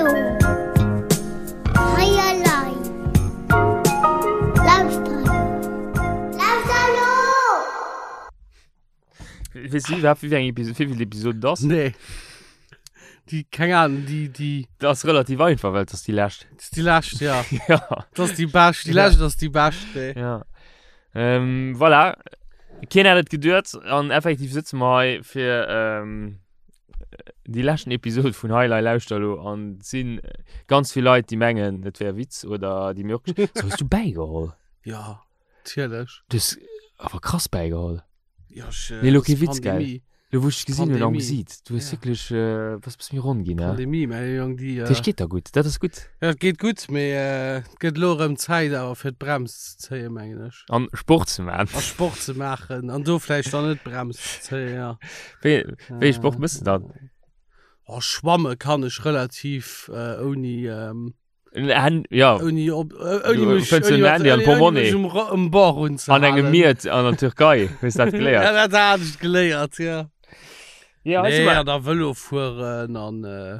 lo! Hei elei! Lauschter lo! Lauschter lo! Weess du iwwerhaapt, wéi eng Episode, wéi vill Episode et ass? Nee. Déi, keng Ahnung, déi, déi. Dat ass relativ einfach, well et ass déi lescht. Dat ass déi lescht, ja. Ja. Dat ass déi bescht, déi lescht ass déi bescht, nee. Ja. Ähm, voilà. Keen hätt et geduet an effektiv sëtze mer hei fir ähm, déi leschten Episode vun Highlight Lauschter lo an et sinn ganz vill Leit, déi mengen, et wär e Witz oder déi mir och. So, hues du bäigeholl? Ja, natierlech. Du hues awer krass bäigeholl. Ja, ech, Nee, lo das kee Witz, gell? Pandemie. Lo wou ech dech gesinn hunn am Pandemie. Gesiit, du hues Ja. wierklech, äh, bass bësse méi ronn ginn, ne? Pandemie, mäi Jong, déi. Dat heescht, geet der gutt, dat ass gutt. Ja, et geet gutt, mee äh, et gëtt elo erëm Zäit awer fir d'Brems ze zéien, mengen ech. An Sport ze maachen. A Sport ze maachen an do vläicht dann net d'Brems ze zéien, ja. Wéi, wéi ee Sport mëss de dann? Oh, schwamme kann ech relativ äh, ouni. Ähm, En, ja. Ouni op, ouni Du mech, fënns ouni en mat, Handy an ouni, ouni Portemonnaie. mech um, Ro- um Bord An unzehalen. engem Miet an der Türkei hues dat geléiert. Ja, dat hat ech geléiert, ja. Ja, also Nee, mal- an da Vëlo fueren an, äh,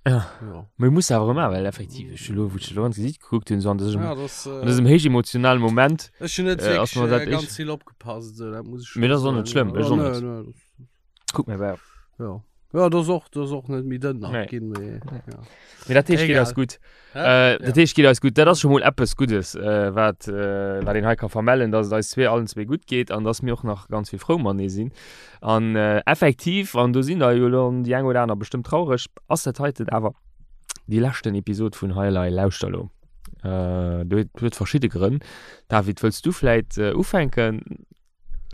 Ja. ja. Mee muss awer ëmmer, well effektiv, ech hu lo, wou ech lo an d'Gesiit gekuckt hunn, so an dësem, Ja, das, äh, an dësem héichemotionalen Moment, ech hunn net äh, ass wierklech mer dat äh, echt- ganz vill opgepasst, esou, dat muss ech Mee schon dat ass och net soen, schlëmm, ja. ech och Ja, net. nee, nee, das, kuck mir bei. ja. Ja, das och, das och net méi dënn nach Nee. ginn, mee, ja. Mee dat heescht, geet Egal. eis gutt. Hä? Äh, dat Ja. heescht, geet eis gutt. Dat ass scho mol eppes Guddes, äh, wat, äh, wat een hei ka vermellen, dass et eis zwee allen zwee gutt geet an dass mir och nach ganz vill frou matenee sinn. An äh, effektiv, an do sinn der jo elo déi eng oder aner bestëmmt traureg, ass dat heiten awer déi leschten Episod vun Hei Elei Lauschter elo. Äh, do huet huet verschidde Grënn. David, wëlls du vläit äh, ufänken?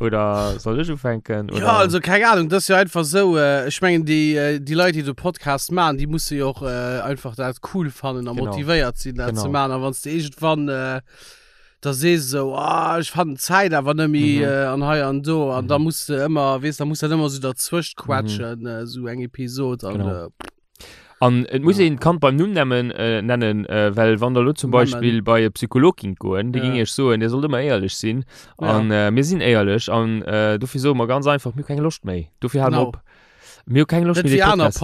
Oder soll ech ufänken? Oder? Ja, also keng Ahnung, das ist jo einfach sou, äh, ech mengen déi, äh, déi Leit, déi de Podcast maachen, déi musse jo och äh, einfach dat cool fannen a Genau. motivéiert sinn, dat ze Genau. maachen. A wann s de iergendwann äh, da sees esou, ah, ech fannen d'Zäit awer net méi Mhm. äh, an hei an do, an Mhm. da muss de ëmmer, weess, da muss dat ëmmer sou derzwëscht quetschen, äh, sou eng Episod an Mhm. Genau. äh, An et muss Ja. een d'Kand beim Numm nemmen, äh, nennen, äh, well wann der elo zum Nemmen. Beispill bei e Psycholog gingt goen, dee Ja. ging iech soen, dir sollt ëmmer éierlech sinn. Ja. An äh, mir sinn éierlech an äh, dofir soe mer ganz einfach, mir hu keng Loscht méi. Dofir hale mer Genau. op. Mir hu keng Loscht Net méi, dee wéi aner Podcast.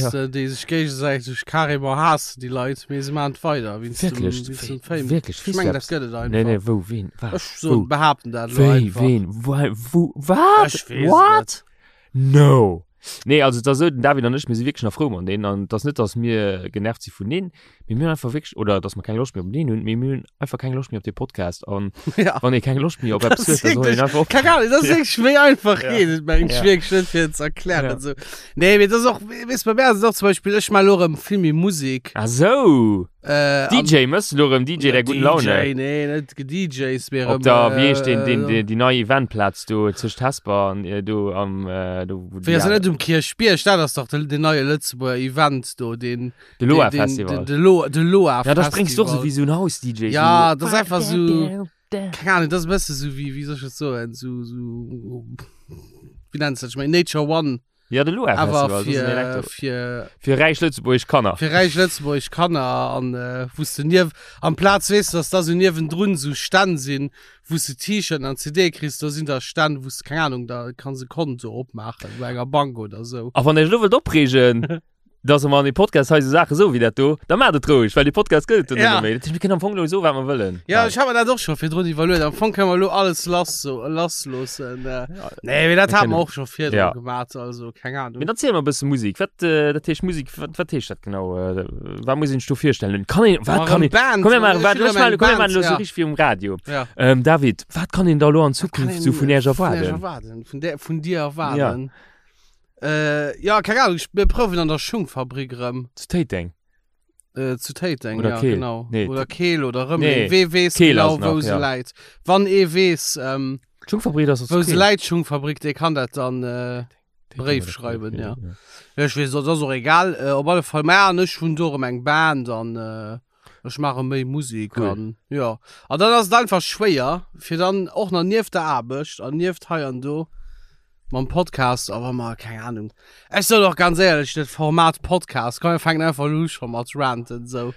Podcasten, déi sech géigesäiteg carrément haassen, déi Leit, mee se maachen et weider wéinst dem, Wierklech, wéinst dem wéi, Fame. wierklech, Ech weess du mengen, dat eppes? gëtt et Nee, nee, einfach. wou, ween, wat, Ech wou, soen, behaapten dat elo wéi, einfach. ween, wei, wou, wat, Ech weess et what? net. No! Nee, also et ass esou, den David an ech, mir si wierklech nach frou mat deen an et ass net, datt mir genervt si vun deen, mee mir hunn einfach wierklech, oder datt mer keng Loscht méi op deen hunn, mee mir hunn einfach keng Loscht méi op dee Podcast an Ja. wann ee keng Loscht méi op Das eppes huet, ist da soll een wirklich, einfach keine ophéieren. Ahnung, das ist Ja. wirklich méi einfach Ja. geet et mengen ech Ja. wierklech net fir et ze erklären Ja. esou. Nee, mee das ist och, weess bei mir ass et och zum Beispill, ech maache elo erëm vill méi Musek. Ah sou! Äh, an DJ, mëss du elo erëm DJ der guten Laune? DJ, nee, net DJs, mee Op erëm, der, wéi heescht deen, deen, äh, deen, déi nei Eventplaz do tëscht Hesper an äh, do am, äh, do wou Wéi déi ass dat aner. net um Kierchbierg? Dat ass dach de, den neie Lëtzebuerger Event do, deen, De deen, Loa deen, Festival. de, de Loa, de Loa Ja, da spréngs du och sou Festival. wéi sou en House-DJ, Ja, sou. dat ass einfach sou, keng Ahnung, dat ass e bësse sou wéi, wéi soll ech dat soen, sou, sou, wéi nenns du dat? Ech mengen Nature One. Ja, de Loa Awer Festival, das ist ein fir, Elektro. fir, Fir räich lëtzebuergesch Kanner. fir räich lëtzebuergesch Kanner an äh, wou s de niew, amplaz weess de, dass da sou niewendrun sou Stänn sinn, wou s de T-Shirten an CDe kriss, do sinn da Stänn, wou s de, keng Ahnung, da kanns e Konto opmaachen bei enger Bank oder sou. A wann Iech elo wëllt opreegen, dass mer an dem Podcast hei sou Saache soen wéi dat do, da maacht et roueg, well dee Podcast gëtt et dann Ja. net méi. Dat heescht, mir kënnen am Fong elo soen, wat mer wëllen. Ja, Bal. ech hat mer dat och scho virdrun iwwerluet. Am Fong kënne mer elo alles lass so, lassloossen. Äh, nee, mee dat Mir hat mer kënnen- och scho virdru Ja. gemaat, also keng Ahnung. Mee dann ziel mer e bësse Musik. Wat, äh, dat heescht Musik, wat, wat heescht dat genau? Äh, wat muss een sech do virstellen? Kann een, wat Ma kann erëm een, Band, komm mir maachen, ech wat, hunn ech erëm eng maachen, komm mir Band, maachen elo sou ja. richteg wéi um Radio. Ja. Ähm, David, wat kann een da elo an Wat kann Zukunft een sou vun Iech vun Iech erwaarden? erwaarden? Vun der, vun dir Ja. erwaarden? Äh, ja, keng Ahnung, ich, mir prouwen an der Schungfabrik erëm. Zu Téiteng? Äh, zu Téiteng, Oder ja, Keel. genau. Nee, Oder Keel oder Rëmeleng. Nee, Wee weess Keel genau, ass nach, wou se ja. läit. Wann ee weess, ähm, D'Schungfabrik ass wou zu se Keel. läit, d'Schungfabrik, dee kann dat dann äh, Téiteng Bréif oder Keel, schreiwen, ja. ja. Ja, ech weess, dat ass och egal. Äh, op alle Fall, mä an ech hunn do erëm eng Band an äh, ech maache méi Musek Cool. an ja. An dann ass et einfach schwéier, fir dann och nach nieft der Aarbecht an nieft hei an do Mam Podcast, awer ma keng Ahnung. Ech soen och ganz éierlech, dat Format Podcast, komm mir fänken einfach elo u scho mat ranten sou.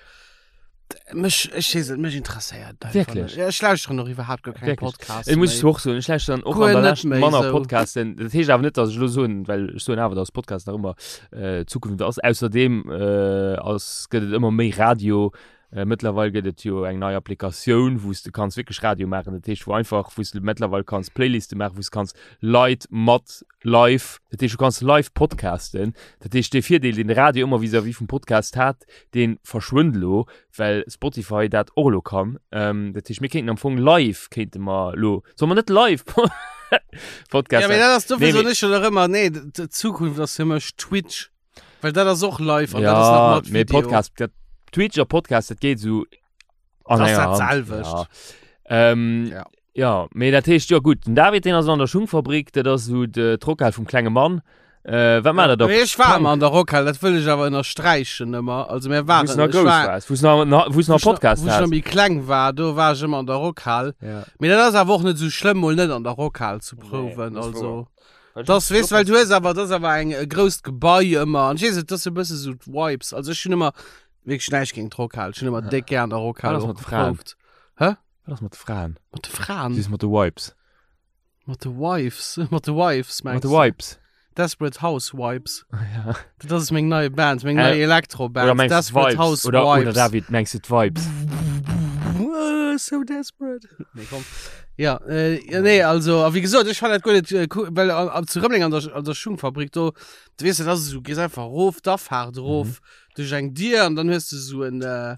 Mech, ech weess net, mech interesséiert et einfach Wierklech? net. Ja, ech lauschteren och iwwerhaapt guer keng Wierklech? Podcasts Ech muss méi. och soen, ech lauschteren och Guer an der net Lescht méi manner sou. Podcasten. Dat heescht awer net, datt ech elo soen, well ech soen awer, datt Podcast nach ëmmer äh, d'Zukunft ass. Ausserdeem äh, ass, gëtt et ëmmer méi Radio. Äh, mëttlerweil gëtt et jo eng nei Applikatioun, wou s de kanns wierklech Radio maachen. Dat heescht, wou einfach, wou s de mëttlerweil kanns Playliste maachen, wou s kanns Leit mat live, dat heescht, du kanns live podcasten. Dat heescht, dee Virdeel, deen de Radio ëmmer vis-à-vis vum Podcast hat, dee verschwënnt elo, well Spotify dat och elo kann. Ähm, dat heescht, mir kéinten am Fong live, kéinte mer elo, solle mer net live Podcast? Ja, mee dat ass dofir nee, soen ech jo nach ëmmer, nee, d'Zukunft ass fir mech Twitch. Well dat ass och live an ja, dat ass nach mat mee Video. Podcast, dat, Twitch a Podcast, dat geet sou an Das enger dat Hand. selwecht. Ja. Ähm, Ja. ja, mee dat heescht, jo gutt, den David, deen ass an der Schungfabrik, dat ass sou de d'Rockhal vum klenge Mann. Äh, wat macht der da? Mee ech war ëmmer an der Rockhal, dat wëll ech awer ënnersträichen ëmmer. Also mir Wou s waren, nach ech grouss war, waars, wou s nach, na, wou s nach wou ech nach, Podcast wou ech nach has. méi kleng war, do war ech ëmmer an der Rockhal. Ja. Mee dat ass awer och net sou schlëmm, mol net an der Rockhal ze Nee, prouwen, dat ass also. wouer. Das, weess, well du hues awer, das awer eng e grousst Gebai ëmmer. An ech weess net, das ass e bësse sou d'Vibes. Also ech hunn ëmmer wierklech näischt géint d'Rockhal. Ech hunn ëmmer déck gär an der Rockhal Wat ass och mat de Fraen? geprouft. Hä? Wat ass mat de Fraen? Mat de Fraen? Si mat de Wipes. Mat de Wives? Mat de Wives, Mat mengs de du? Wipes. Desperate Housewives. Ja. Dat ass meng nei Band, meng Äh, nei Elektroband. Oder mengs du Desperate d'Vibes? Housewives. Oder, oder David, mengs du d'Vibes? Uh, so desperate. Nee, komm. Ja, äh, ja, nee, also, a wéi gesot, ech fand dat guer net, äh, cool, well an, an, zu Rëmeleng an der, an der Schungfabrik do, du weess, dat ass esou, gees einfach erof, d'Afaart erof, Mhm. duerch eng Dier an dann hues du esou en, äh,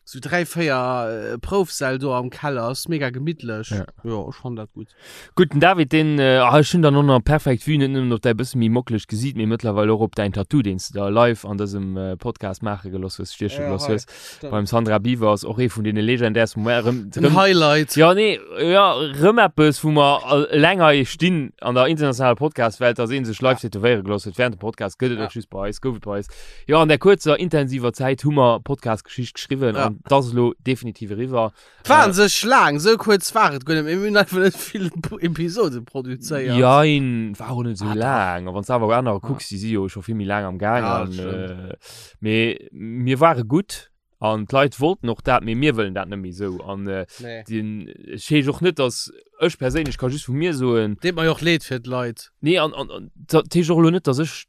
sou 3, 4 äh, Proufsäll do am Keller, ass mega gemittlech. Ja. Jo, ech fand dat gutt. Gutt, den David, deen, äh, ah, ech hunn dann och nach perfekt Vue, net nëmmen op däi bësse méi mockelegt Gesiit, mee mëttlerweil och op däin Tattoo, deen s de der live an dësem äh, Podcast maache geloss hues, stieche Ja, geloss hei. hues. Beim Sandra Biwer ass och ee vun deene legendärsten Momenter. Rëm, En rëm, Highlight. ja, nee, ja, rëm eppes, wou mer eleng hei stinn an der internationaler Podcast-Welt, dass ee sech live tätowéiere geloss huet während dem Podcast. Gëtt et Ja. och just bei eis, gouf et bei eis. Jo, an der kuerzer, intensiver Zäit hu mer Podcast-Geschicht geschriwwen Ja. an dat ass elo definitiv eriwwer. War an sech laang, sou kuerz war et guer net, mee mir hunn einfach net vill Episode produzéiert. Jein, war och net sou Ah, dach. laang. A wann s de awer anerer Ja. kucks, déi si jo scho vill méi laang am Gaang. Ja, An, dat stimmt. äh, mee mir ware gutt an d'Leit wollten och dat, mee mir wëllen dat net méi sou. An äh, Nee. den, ech heesch och net, dass ech perséinlech ka just vu mir soen, Deet mer jo och leed fir d'Leit. nee, an, an, an dat heescht och elo net, dass ech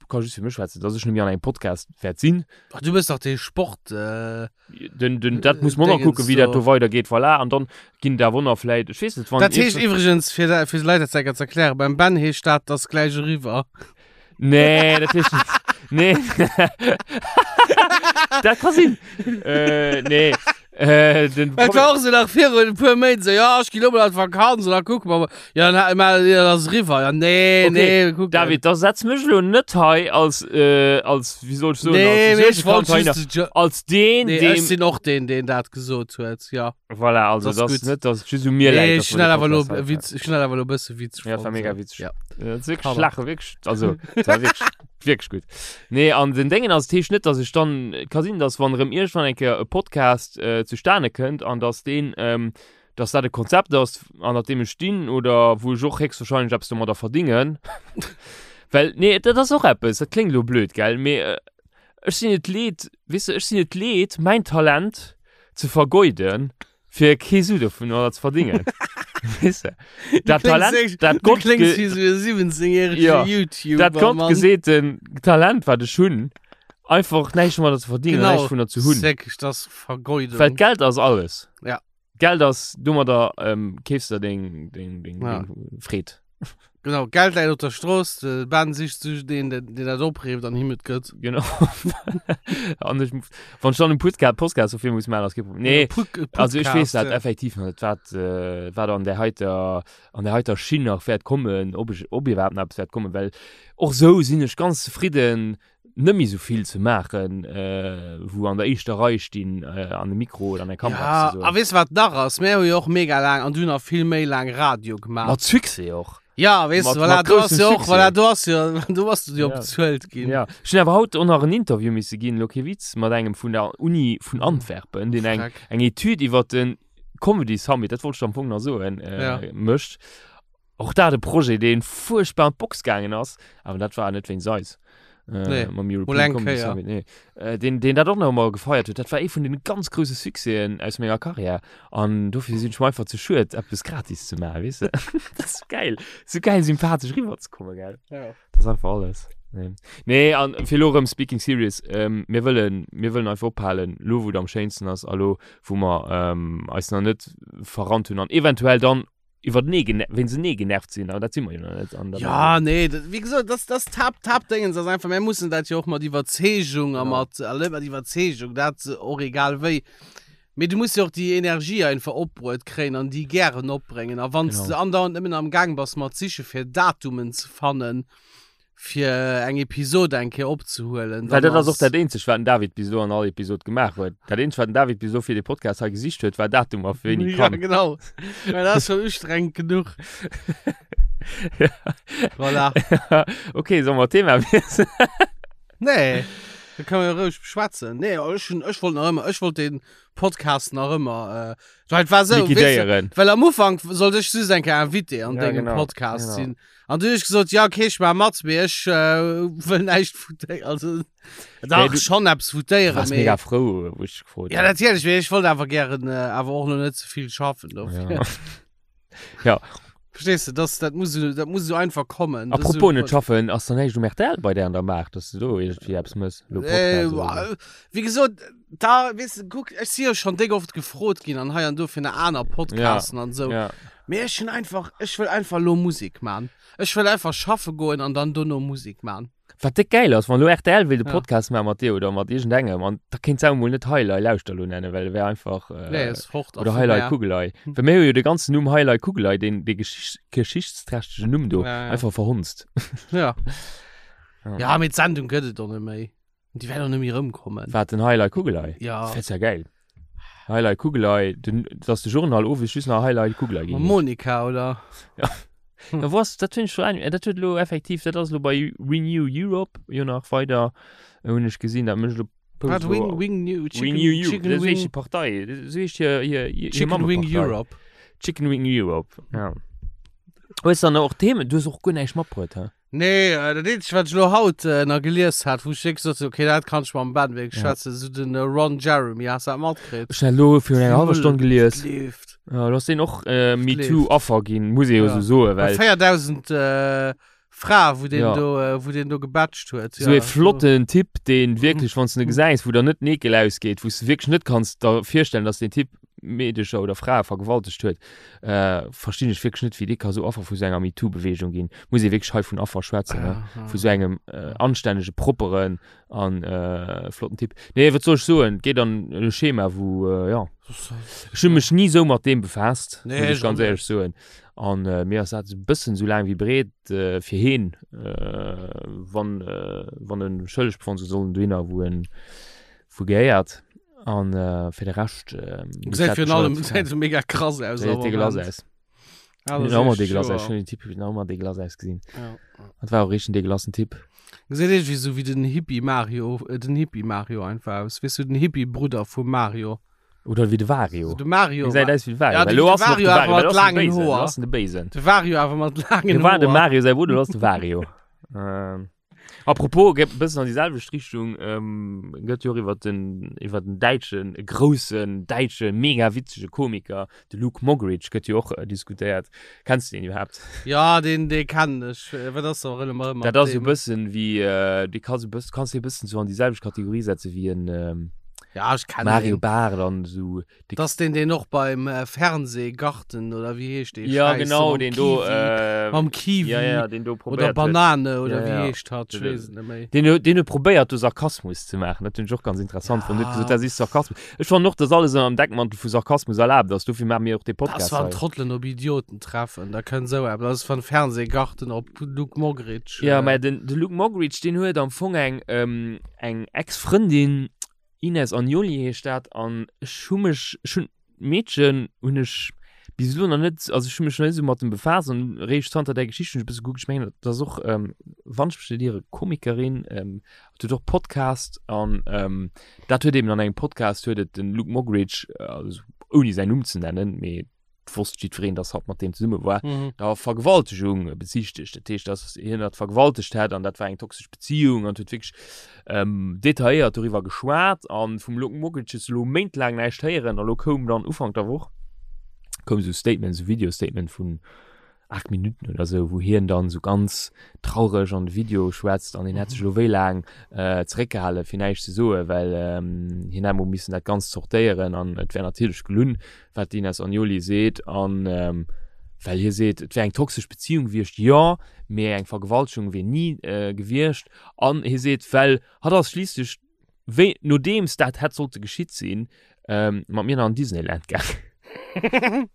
ka just fir mech schwätzen, dass ech net méi an engem Podcast wäert sinn. Ach, du bist doch dee Sport. Äh, Den, den, dat muss man noch Dingens kucken, wéi dat do. do weidergeet, voilà. An dann ginn da Wonner vläit, ech weess net, wann Dat heescht iergendwann- iwwregens, fir, da- fir d'Leit dat zeker ze erklären, beim Ben heescht dat, das gleich eriwwer. Nee, dat heescht net. Nee. dat ka sinn. Äh, nee. Äh, den Et war och so nach virun e puer Méint so, ja, ech ginn lo mol an d'Vakanz an da kucke mer mol. Ja, dann, ma, ja, dat ass eriwwer. Ja, nee, Okay, nee, wir kucken. David, da setz mech lo net hei als, äh, als, wéi soll ech soen, nee, als mee ech wollt Container, just de Jo- als deen, Nee, deem, ech sinn och deen, deen dat gesot huet, ja. voilà, also Das das ist gut. net, dass et just u mir Nee, läit, ech dass hunn mer dat de awer lo Podcast hei Witz, ech hunn dat awer lo e bësse witzeg Ja, dat war fonnt, mega so. witzeg. Ja. Ja, dat ass wierklech Hammer. lache, wierklech, also, dat war wierklech, wierklech gutt. Nee, an den Déngen ass, et heescht net, dass ech dann, et ka sinn, dass wann erëm iergendwann eng Kéier e Podcast äh, zustane kënnt an dass deen, ähm, dass dat e Konzept ass, an dat deem ech stinn oder wou ech och héchstwahrscheinlech eppes domadder verdingen. Well, nee, dat ass och eppes, dat kléngt elo blöd, gell, mee äh, ech sinn et leed, weess de, ech sinn et leed, mäin Talent ze vergeuden, fir kee Su dovunner ze verdingen. Weess de? Dat Talent, dat Du Gott, kléngs ge wéi sou e 17-jährege Ja, YouTuber, dat Gott Mann. geseeten Talent, wat ech hunn, einfach näischt domadder ze verdingen, Genau. näischt dovunner ze hunn. Säck, das ist Vergeudung. Well Geld ass alles. Ja. Geld ass domadder ähm, keefs der deng, deng, deng, Ja. deng Freed. Genau, Geld läit op der Strooss, de Ben sicht sech deen, deen deen dat opreeft an him et gëtt. Genau. An ech, wann ech dann en Podcast, Podcast dofir muss maachen, ass kee Problem. Nee, Put- also ech weess dat Podcast, ja. effektiv nach net, wat, äh, wat an där heiter, an där heiter Schinn nach wäert kommen, ob ech, ob iwwerhaapt nach eppes wäert kommen, well och sou sinn ech ganz zefridden, net méi sou vill ze maachen, äh, wou an der éischter Rei stinn, äh, an de Mikro oder an der Kamera Ja, eppes ze soen. a weess wat nach ass? Mir hu jo och mega laang an du nach vill méi laang Radio gemaach. Mat Succès och. Ja, weess Mat- du, voilà, mat du hast groussem jo och, Succès. voilà, du hast jo, du hast jo Ja. bezuelt ginn. Ja. Ech hunn awer haut och nach en Interview misse ginn, elo kee Witz, mat engem vun der Uni vun Antwerpen, deen eng, Freck. eng Etüd iwwer den Comedy Summit, dat wollt ech am Fong nach soen, äh, Ja. mécht. Och dat e Projet, deen fuerchtbar an d'Box gaangen ass, awer dat war net wéinst eis. Äh, Nee, mam mol European eng Comedy Kéier. Summit, nee. Äh, deen, deen dat och nach ëmmer gefeiert huet. Dat war ee vun den ganz grousse Succèsen aus menger Karriär. An dofir sinn ech mer einfach ze schued, eppes gratis ze maachen, weess de. Dat ass geil. Sou geil sympathesch riwwerzekommen, gell. Ja. Dat ass einfach alles. Nee, nee an fir elo erëm speaking serious, ähm, mir wëllen, mir wëllen einfach ophalen, lo wou et am schéinsten ass a lo wou mer ähm, eis nach net verrannt hunn an eventuell dann iwwertenee gene wéinst enee genervt sinn, awer dat si mer jo nach net. An dat Ja, nee, dat, wéi gesot, das, das Tap, Tap-Dingens ass einfach, mir mussen dat jo och mat Iwwerzeegung a Genau. mat, alle mat Iwwerzeegung, dat och egal wéi. Mee du muss jo och déi Energie einfach opbruet kréien an déi gären opbréngen. A wann s Genau. de andauernd nëmmen am Gaang bass mat siche fir Datumen ze fannen, fir eng Episode eng Kéier opzehuelen, Well dann dat ass och ass. dat eenzegt, wat den David bis elo an all Episod gemaach huet. Dat eenzegt, wat den David bis elo fir dee Podcast hei gesicht huet, war Datumer, fir wéini Ja, kann. genau. Mä dat ass schon ustrengend genuch. Ja. Voilà. Okay, solle mer d'Thema wiesselen? Nee, da kann man roueg beschwätzen. Nee, ech hun, ech wollt nach ëmmer, ech wollt den Podcast nach ëmmer, äh, weil et war sou, weess de, Liquidéieren. well am Ufank sollt ech just eng Kéier Invité an Ja, dengem genau, Podcast genau. sinn. An du hunn ech gesot, ja okay, ech maach mat, mee ech äh, wëll näischt votéieren. Also, dach, du- schon eppes Du votéieren, warst mee. mega frou, wou ech gefrot Ja, hunn. natierlech, mee ech wollt awer gären äh, awer och lo net ze vill schaffen dofir. Ja. Ja. Verstehst du, das, dat muss, dat muss so einfach kommen. Das Apropos so, net schaffen, ass da näischt um RTL bei där an der Maach, dass du do iergendwéi eppes mëss? Lo Äh, Podcast oder sou? wéi gesot, da, weess du, kuck, ech si jo schon déck oft gefrot ginn an hei an do fir nach aner Podcasten an sou. Ja. Mee ech hunn einfach, ech wëll einfach lo Musek man. Ech wëll einfach schaffe goen an dann dono Musek man. Wat déck gäil ass, wann elo rtl wéilt e Ja. Podcast maache mat dir oder mat iergendengem an da kéint se awer mol net Heilei Lauschter lo nennen, well et wär einfach äh, Nee, ass fort a oder vu Heilei mär. Kugelei. Well mir hu jo de ganzen Numm Heilei Kugelei, deen dee Geschicht, geschichtsträchtegen Numm do, Ja, ja. einfach verhunzt. Ja. Ja. Ja, mee d'Sendung gëtt et och net méi. Déi wäert och net méi erëmkommen. Wat, den Heilei Kugelei? Ja. Dat wär ja gäil. Heilei Kugelei, den, dass de Journal owes just nach Heilei Kugelei Mam ginn heescht. Monika, oder? Ja. Ja, wo ass, dat hunn ech schon ein, dat huet elo effektiv, dat ass elo bei Renew Europe jo nach weider, hunn ech gesinn, dat mécht elo Wat, Post Wing, elo. Wing New, Chicken, Renew Europe, Chicken dat ass Wing, wéi Partei, dat ass wéi hir, hir, hir Chicken Wing Mammepartei. Europe. Chicken Wing Europe, ja. Hues dann och Themen, du hues och guer näischt matbruet, hä? Nee, äh, dat eenzegt, wat ech elo haut äh, nach gelies hat, wou ech wierklech sot, okay, dat kann ech mam Ben wierklech Ja. schwätzen, sou den äh, Ron Jeremy, has du dat matkritt? Ech hun elo virun enger hallwer Stonn gelies. Leeft. Ja, du hast den och äh, Leeft. MeToo-Affer ginn, muss ee jo Ja. sou soen, Bei well 4000 äh, Frae, wou den Ja. do, äh, wou den do gebatcht huet. sou ja, e flotten Typ, deen wierklech, wann s du en gesäis, wou der net den Ekel ausgeet, wou s du wierklech net kanns der virstellen, dass deen Typ Meedecher oder Frae vergewaltegt huet, äh, verstinn ech wierklech net, wéi dee ka sou Affer vu sou enger MeToo-Beweegung ginn. Muss ee wierklech hei vun Affer schwätzen, ne? Ja, Vu sou engem äh, anstännege, propperen an äh, flotten Typ. Nee, wat soll ech soen? Geet an e Schema, wou, äh, ja. Ech hu mech ni sou mat deem befaasst, Nee, muss ech ech ganz och net. éierlech soen. An äh, mir ass dat e bëssen sou laang wéi breet äh, fir heen, äh, wann, äh, wann en schëlleg befonnt gëtt, soll en dohinner, wou en wou gehéiert. An äh, fir de Rescht äh, Gesäit virun allem gesäit so mega krass aus. Gesäit dégueulasse aus. Ja, das Huet ëmmer ist dégueulasse aus. sure. Ech hunn den Typ huet ëmmer dégueulasse ausgesinn. Ja. Dat war och richteg en dégueulassen Typ. Gesäit irgendwie so wéi den Hippie Mario, äh, den Hippie Mario einfach aus. Weess du, den Hippie Brudder vum Mario. Oder wéi de Wario. So de Mario. Gesäit aus wéi de Wario. Ja, Well de lo ass en och Wario de awer Wario, mat well lo ass en de laangen Béisen. Lo Hoer. ass en de Béisen. De Wario awer mat laangen Lo war de Hoer. Mario säi Brudder, lo ass de Wario. Ähm. Apropos, geet e bëssen an déi selwecht Richtung, ähm, gëtt jo och iwwer den, iwwer den däitschen, groussen däitsche mega witzege Komiker, de Luke Moggridge, gëtt jo och äh, diskutéiert. Kenns du deen iwwerhaapt? Ja, deen, dee kennen ech. Äh, Wat ass da erëm mat Dat ass esou deem? e bëssen wéi, äh, dee kanns e bëssen, kanns de e bëssen sou an déi selwecht Kategorie setze wéi en ähm, Ja, ech kennen Mario deen. Barth an esou. Dat ass deen, deen och beim äh, Fernsehgarten oder wéi heescht dee Ja, Schäiss, genau, mam deen do, Kiwi, äh, mam Kiwi ja, ja, deen do oder probéiert huet. Banane oder Ja, wéi ja. heescht hat, ech Den- weess et net méi. Deen huet, deen huet probéiert do Sarkasmus ze maachen. Dat hunn ech och ganz interessant fonnt. Huet gesot, Ja. dat is Sarkasmus. Ech fannen och, dass alles ënner dem Deckmantel vu Sarkasmus erlaabt ass. Dofir maache mir och dee Das Podcast wann hei. Trotteln op Idioten treffen, da kënnt sou eppes. Das ass van Fernsehgarten op Luke Moggridge. Ja, äh, mä den, de Luke Moggridge, deen huet am Fong eng, ähm, eng Ex-Frëndin, Ines Agnoli heescht dat an ech hu mech, ech hunn d'Meedchen hunn ech bis elo nach net, also ech hu mech nach net esou mat dem befaasst an eréischt zanter där Geschicht hunn ech e bësse gekuckt. Ech mengen dat ass och, wann ech mech net iere, Komikerin, huet och Podcast an dat huet eben an engem Podcast huet et den Luke Moggridge, also ouni säin Numm ze nennen, mee. wosst jiddwereen, dass hatt mat deem zesumme war, mhm. der Vergewaltegung bezichtegt. Dat heescht, dass hien dat vergewaltegt hätt an dat war eng toxesch Beziehung an huet wierklech ähm, detailléiert doriwwer geschwat an vum Luke Mockridge hues du lo méintlaang näischt héieren a lo koum dann Ufank der Woch koum sou Statement, sou Video-Statement vun 8 Minuten oder sou, wou hien dann sou ganz traureg an de Video schwätzt an hien hätt sech elo wéi laang äh, zeréckgehale fir näischt ze soen, well ähm, hien hätt mol missen dat Ganzt zortéieren an et wär natierlech gelunn, wat d'Ines Agnoli seet an ähm, well hie seet, et wär eng toxesch Beziehung gewiescht, jo, mee eng Vergewaltegung wier ni äh, gewiescht an hie seet, well hatt ass schliisslech wéi nodeems dat hätt sollte geschitt sinn, ähm, mat mir nach an Disneyland gaangen.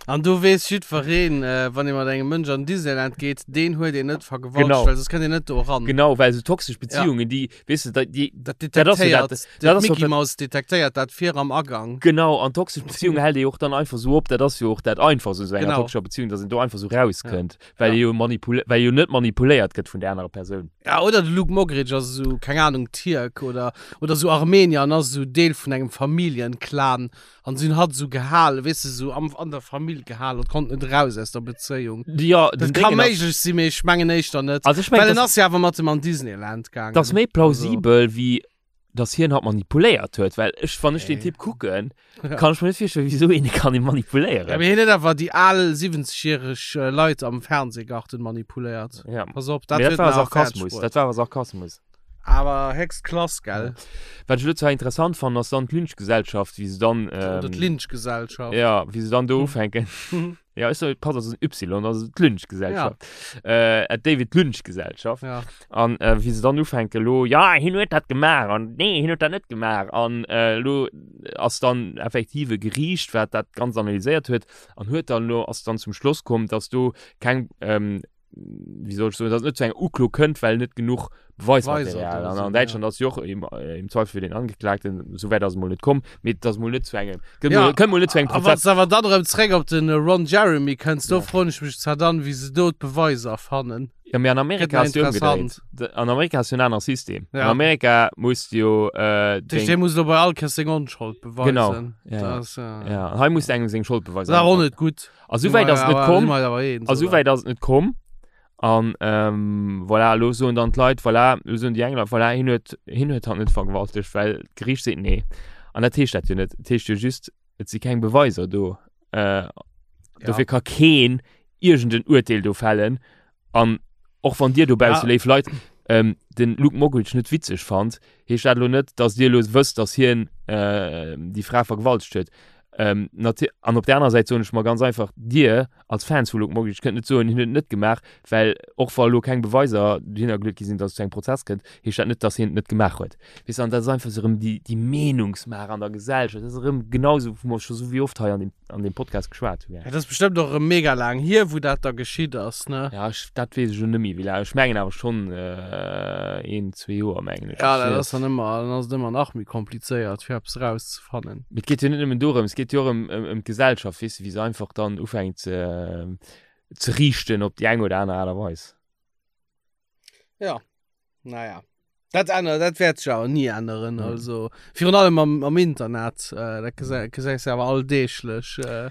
An do weess jiddwereen, äh, wann ee mat engem Mënsch an Disneyland geet, deen huet een net vergewaltigt, Genau. well soss kënnt een net do eran. Genau, well sou toxesch Beziehungen, déi, weess de, déi, Dat Dat ass jo detektéiert, dat- dat ass jo d'Mickey dat- Mouse detektéiert dat vir am Agang. Genau, an toxesch Beziehungen hält ee och dann einfach sou op, dat ass jo och dat Einfachst u sou enger Genau. toxescher Beziehung, dass een do einfach sou rauskënnt. Well Ja. jo manipul well jo net manipuléiert gëtt vun der anerer Persoun. Ja, oder de Luke Mockridge ass esou, keng Ahnung, Tierk oder, oder esou Armenier an ass esou Deel vun engem Familljenclan an si hunn hatt esou gehalen, weess de, esou am, an der Famill gehalen, hatt konnt net eraus aus der Bezéiung. Ja, Dat den ka Déngen ass, méiglech sinn, mee ech mengen éischter net. also ech mengen, Well en dass, ass jo awer mat em an Disneyland gaangen. dass méi Also, plausibel wéi dass hien hatt manipuléiert huet, well ech, wann ech den nee. Typ kucken, Ja. kann ech mir net virstellen, wieso een kann ihn Ja, manipuléieren. mee hien huet awer déi al 70-järeg Leit am Fernsehgarten manipuléiert. Ja. Pass op, dat Mee dat huet war en awer fäerdeg Sarkasmus, bruet. dat war awer Sarkasmus. Awer héchst Klass, gell? Wat ech elo zwar interessant fannen, ass dann d'Lynchgesellschaft, wéi se dann, Oder ähm, d'Lynchgesellschaft. ja, wéi se dann do ufänken. Ja, ech so, pass, ass en Y, also d'Lynchgesellschaft. Ja. Äh, David Lynch-Gesellschaft. Ja. An äh, wéi se dann ufänken lo, ja, hien huet dat gemaach an nee, hien huet dat net gemaach. An äh, lo ass dann effektiv e Geriicht, wat dat ganz analyséiert huet an huet dann lo, ass dann zum Schloss komm, dass do keng, ähm, wéi soll ech soen, dass et net zu enger Uklo kënnt, well net genuch Beweismaterial. An an Däitschland ass jo och im, äh, im Zweifel für den Angeklagten, sou wäit ass et mol net komm, mee et ass mol net zu engem, kënnt Ja, mol, kënnt mol net zu engem a wann Prozess. s awer dann erëm zréck op den Ron Jeremy kënns, do Ja. froen ech mech zwar dann, wéi se do d'Beweiser fannen. Ja, mee an Gëtt Amerika nach ass jo ëmgedréit. interessant. D- An Amerika ass jo en anere System. An Ja. Amerika muss du jo äh, Dat heescht, deng, dee muss elo bei all Kéiers seng Onschold Genau, beweisen. ja, Dat ja. ass, äh, Ja, an hei muss du engem seng Schold beweisen. dat ass awer och net gutt. A Si souwäit mer ass et net awer, si komm. mer eis awer eens, A oder? souwäit ass et net komm. An ähm, voilà, elo soen dann d'Leit, voilà, elo soen déi eng Leit, voilà, hien huet, hien huet hatt net vergewaltegt, well d'Geriicht seet nee. An dat heescht dat jo net. Et heescht jo just, et si keng Beweiser do. Äh, Ja. dofir ka keen iergend en Urteel do fällen. An och wann dir dobausse, Ja. léif Leit, ähm, den Luke Mockridge net witzeg fannt, heescht dat elo net, dass dir elo wësst, dass hien äh, déi Fra vergewaltegt huet. Ähm, an op der anerer Säit soen ech mer ganz einfach, dir als Fans vu Luke Mockridge kënnt net soen, hien huet et net gemaach, well och wa elo keng Beweiser dohinner geluet gi sinn, dass et zu engem Prozess kënnt, heescht dat net, dass hien et net gemaach huet. Weess de, an dat ass einfach esou erëm déi, déi Meenungsmaach an der Gesellschaft, dat ass erëm genau esou, wou mer scho sou wéi oft hei an deem, an deem Podcast geschwat hunn. Ja, dat ass bestëmmt och erëm mega laang hier, wou dat da geschitt ass, ne? Ja, ech, dat weess ech elo net méi, wéi laang. Ech mengen awer schonn een, zwee Joer, mengen ech. Ja, dat ass dann ëmmer, dann ass et ëmmer nach méi komplizéiert, fir eppes erauszefannen. Mee et geet jo net nëmmen dorëms, et geet jo och ëm, ëm, ëm d'Gesellschaft, weess de, wéi se einfach dann ufänkt ze, ze riichten op déi eng oder aner Aart a Weis. Ja, naja. Dat ännert, dat wäert sech awer ni änneren. Mhm. Also virun allem am, am Internet, äh, dat gesäis gesäis du awer alldeeglech. Äh,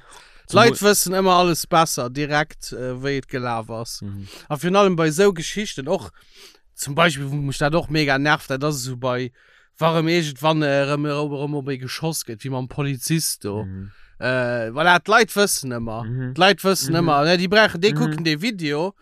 D'Leit wëssen ëmmer alles besser direkt, äh, wéi et gelaf ass. Mhm. A virun allem bei esou Geschichten och, zum Beispill, wou mech dat och mega nervt, dat ass esou bei, wa rëm iergendwann erëm erëm op ee geschoss gëtt, wéi mam Polizist do. Mhm. Äh, voilà, d'Leit wëssen ëmmer. Mhm. D'Leit wëssen Mhm. ëmmer, ne, déi brauchen, déi Mhm. kucken dee Video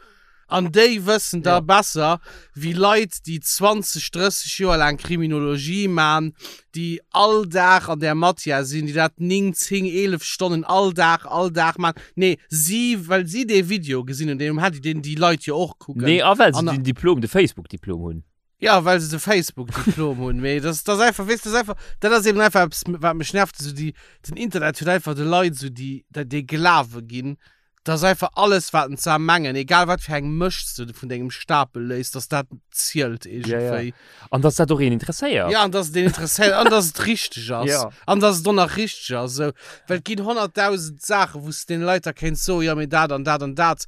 An déi wëssen da Ja. besser wéi Leit, déi 20, 30 Joer laang Kriminologie man, déi all Dag an där Matière sinn, déi dat 9, 10, 11 Stonnen all Dag, all Dag man. Nee, si, well si dee Video gesinn hunn, deen um Handy, deen déi Leit jo och kucken. Nee, a well se An- den Diplom, de Facebook-Diplom hunn. Ja, well se de Facebook-Diplom hunn. Mee das, das einfach, weess, das einfach, dat ass eben einfach eppes, wat mech nervt, esou déi, den Internet huet einfach de Leit esou déi, dat dee Glawe ginn, dass einfach alles, wat en zwar mengen, egal wat fir eng Mëscht s du vun dengem Stapel léiss, dass dat zielt iergendwéi. Ja, ja. An dass dat och een interesséiert. Ja, an dass et een interesséiert an dass et richteg ass. Ja. An dass et och nach richteg ass. Esou, well et ginn 100.000 Saachen, wou s de deene Leit da kéints soen, jo, mee dat an dat an dat.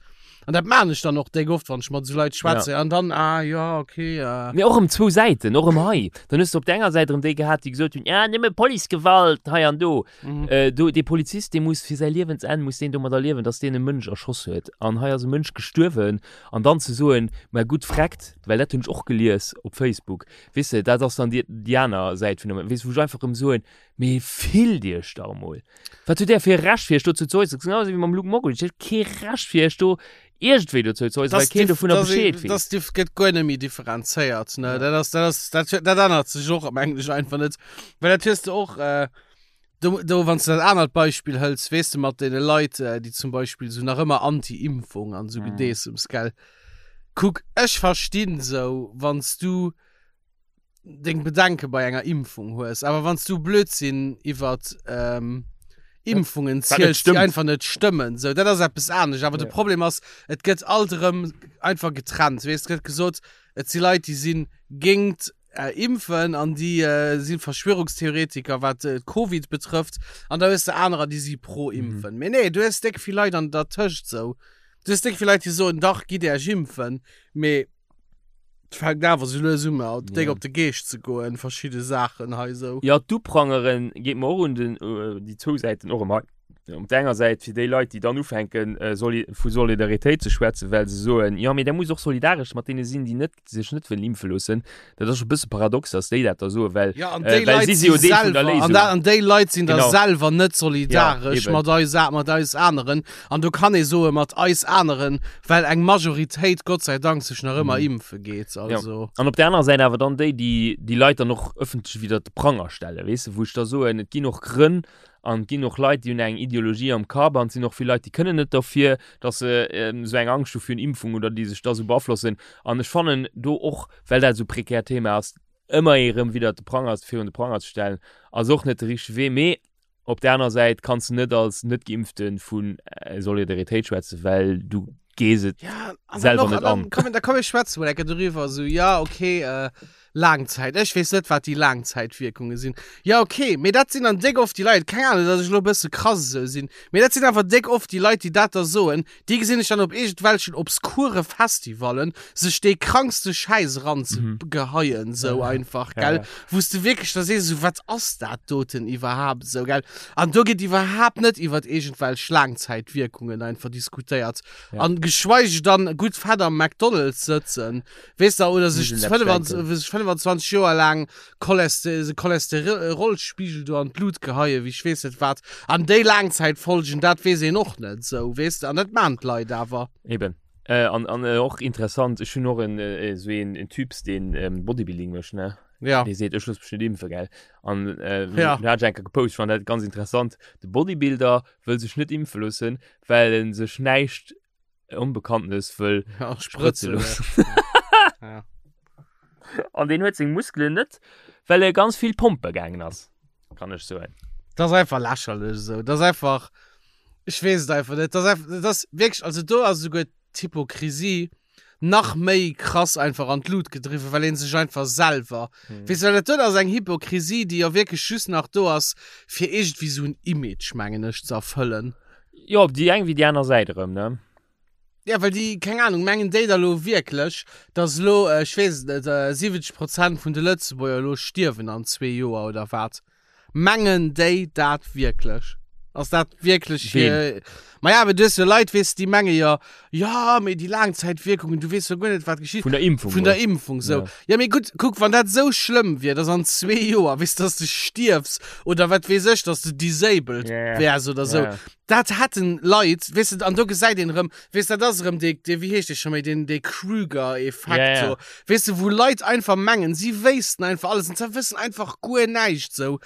An dat maan ech dann och déck oft, wann ech mat esou Leit schwätze. An dann, ah jo, okay. Mee och erëm zwou Säiten, och erëm hei. Dann hues de op der enger Säit erëm déi gehat, déi gesot hunn, ja, nëmme Policegewalt hei an do. Do, dee Polizist, dee muss fir säi Liewensenn muss deen domadder liewen, datt deen e Mënsch erschoss huet. An hei ass e Mënsch gestuerwen. An dann ze soen, mä gutt, freckt, well dat hunn ech och gelies op Facebook, weess de, dat ass dann déi, déi aner Säit vun der, weess de, wou ech einfach erëm soen, Mee fillt iech dach emol! Wat hutt där fir e Recht fir iech dozou ze äusseren? Genau esou wéi mam Luke Mockridge, Dir hutt kee Recht fir iech do iergendwéi dozou ze äusseren, well keen dovunner Bescheed weess. Dat gëtt guer net méi differenzéiert, ne? Dat ass, dat ass, dat, dat ännert sech och am Englesche einfach net. Well dat hues de och, do, do, wann s de dat anert Beispill hëls, weess de, mat deene Leit, déi zum Beispill esou nach ëmmer Anti-Impfung an esou Gedeessems, gell? Kuck, ech verstinn esou, wann s du deng Bedenke bei enger Impfung hues, awer wann s du Blödsinn iwwert ähm, Impfungen Wat net ziels, déi stëmmt. einfach net stëmmen, sou dat ass eppes anescht. Awer de Ja. Problem ass, et gëtt alt erëm einfach getrennt. Weess, et gëtt gesot, et si Leit, déi si géingt äh, Impfen an déi äh, si Verschwörungstheoretiker, wat äh, Covid betrëfft, an da hues de anerer, déi si pro Impfen. Mee nee, du hues déck vill Leit an dertëscht sou. Du hues déck vill Leit, déi soen, dach, gitt Äech impfen, mee Et fänkt awer sou lues un mer déck Ja. op de Geescht ze goen, verschidde Saachen hei sou. Jo, d'Uprangeren geet mer och un den, déi zwou Säiten och ëmmer. Op der enger Säit fir déi Leit, déi dann ufänken soli vu Solidaritéit ze schwätzen, well se soen, jo mee der musst och solidaresch mat deene sinn, déi net sech net wëllen impfe loossen. Dat ass scho e bësse paradox, datt déi dat da soen, well Ja, an déi well Leit si si si jo Deel vun der selwer, an Léisung. da, an déi Leit sinn da Genau. selwer net Ja, solidaresch eben. mat eis, mat eis aneren. An do kann ee soe mat eis aneren, well eng Majoritéit Gott sei Dank sech nach ëmmer impfe geet. Also. Ja. An op der anerer Säit awer dann déi, déi déi Leit dann och ëffentlech widder de Pranger stellen, weess de, wou ech da soen, et ginn och Grënn an et ginn och Leit, déi hunn eng Ideologie am Kapp an et sinn och vill Leit, déi kënnen net derfir, datt se esou eng Angscht hu virun Impfung oder déi sech da esou beaflossen. An ech fannen do och, well dat esou e prekärt Thema ass, ëmmer ee rëm widder de Pranger, virun de Pranger ze stellen, ass och net de richtege Wee. Mee Op der aner Säit kanns de net als Net-Geimpfte vu Solidaritéit schwätzen, well du gees et ja, selwer och, net an. Komm, da komm ech schwätze mol enke doriwwer, esou, ja, okay, äh, Laangzäit, ech weess net, wat déi Laangzäitwierkunge sinn. Ja, okay, mee dat sinn dann déck oft déi Leit, keng Ahnung, datt ech elo e bësse krass esou sinn, mee dat sinn awer déck oft déi Leit, déi dat da soen, Déi gesinn ech dann op iergendwelchen obskure Festivallen sech dee krankste Schäiss eranzegeheien, sou einfach, gell? Wou s de wierklech da sees, esou, wat ass dat doten iwwerhaapt, esou, gell? An do gëtt iwwerhaapt net iwwert iergendwelch Laangzäitwierkungen einfach diskutéiert. An geschweige dann gutt fett am McDonald's sëtzen, weess de, oder sech 25 Joer laang Choleste Cholesterolspiegel do an d'Lut geheien, wéi ech weess net wat. An déi Laangzäitfolgen, dat weess een och net esou, weess de. An dat maan d'Leit awer. Eben. Äh, an, an äh, och interessant, ech hunn och en, äh, esou een, en Typs, deen ähm, Bodybuilding mécht, ne? Ja. Dee seet, ech looss mech net impfen, gell? An äh, Ja. du hat ech eng Kéier gepost, ech fand dat ganz interessant. De Bodybuilder wëll sech net impfe loossen, well en sech näischt Onbekanntes wëll ja, sprëtze sprëtze loossen. Ja. An deen huet seng Muskelen net, well e ganz vill pompe gaangen ass, kann ech soen. Dat ass einfach lächerlech esou. Dat ass einfach, ech weess et einfach net. Dat ass einfach, dat ass wierklech, also do ass esouguer d'Hypokrisie nach méi krass einfach an d'Lut gedriwwen, well ee sech einfach selwer, weess de, well dat do ass eng Hypokrisie, déi jo wierklech just nach do ass, fir iergendwéi esou en Image, mengen ech, ze erfëllen. Jo, op déi eng wéi déi aner Säit erëm, ne? Ja, well déi, keng Ahnung, mengen déi da lo wierklech, dass elo, ech weess et net, 70 Prozent vun de Lëtzebuerger elo stierwen an zwee Joer oder wat? Mengen déi dat wierklech? Ass dat wierklech hir. Maja, awer du hues jo Leit, weess de, déi menge jo, jo, mee déi Laangzäitwierkungen, du weess jo guer net, wat geschitt. Vun der Impfung. Vun der Impfung, sou. Ja. Jo, mee gutt, kuck, wann dat esou schlëmm wier, dass an zwee Joer, weess de, dass de stierfs oder wat weess ech, dass de disabled wäers oder sou. Dat hätten Leit, weess de, an do gesäit een erëm, weess de, dat ass erëm dee, dee, wéi heescht dee scho méi, deen, dee Kruger-Effekt, Ja, ja. so, weess de, wou Leit einfach mengen, si wéissten einfach alles an se wëssen einfach guer näischt, sou,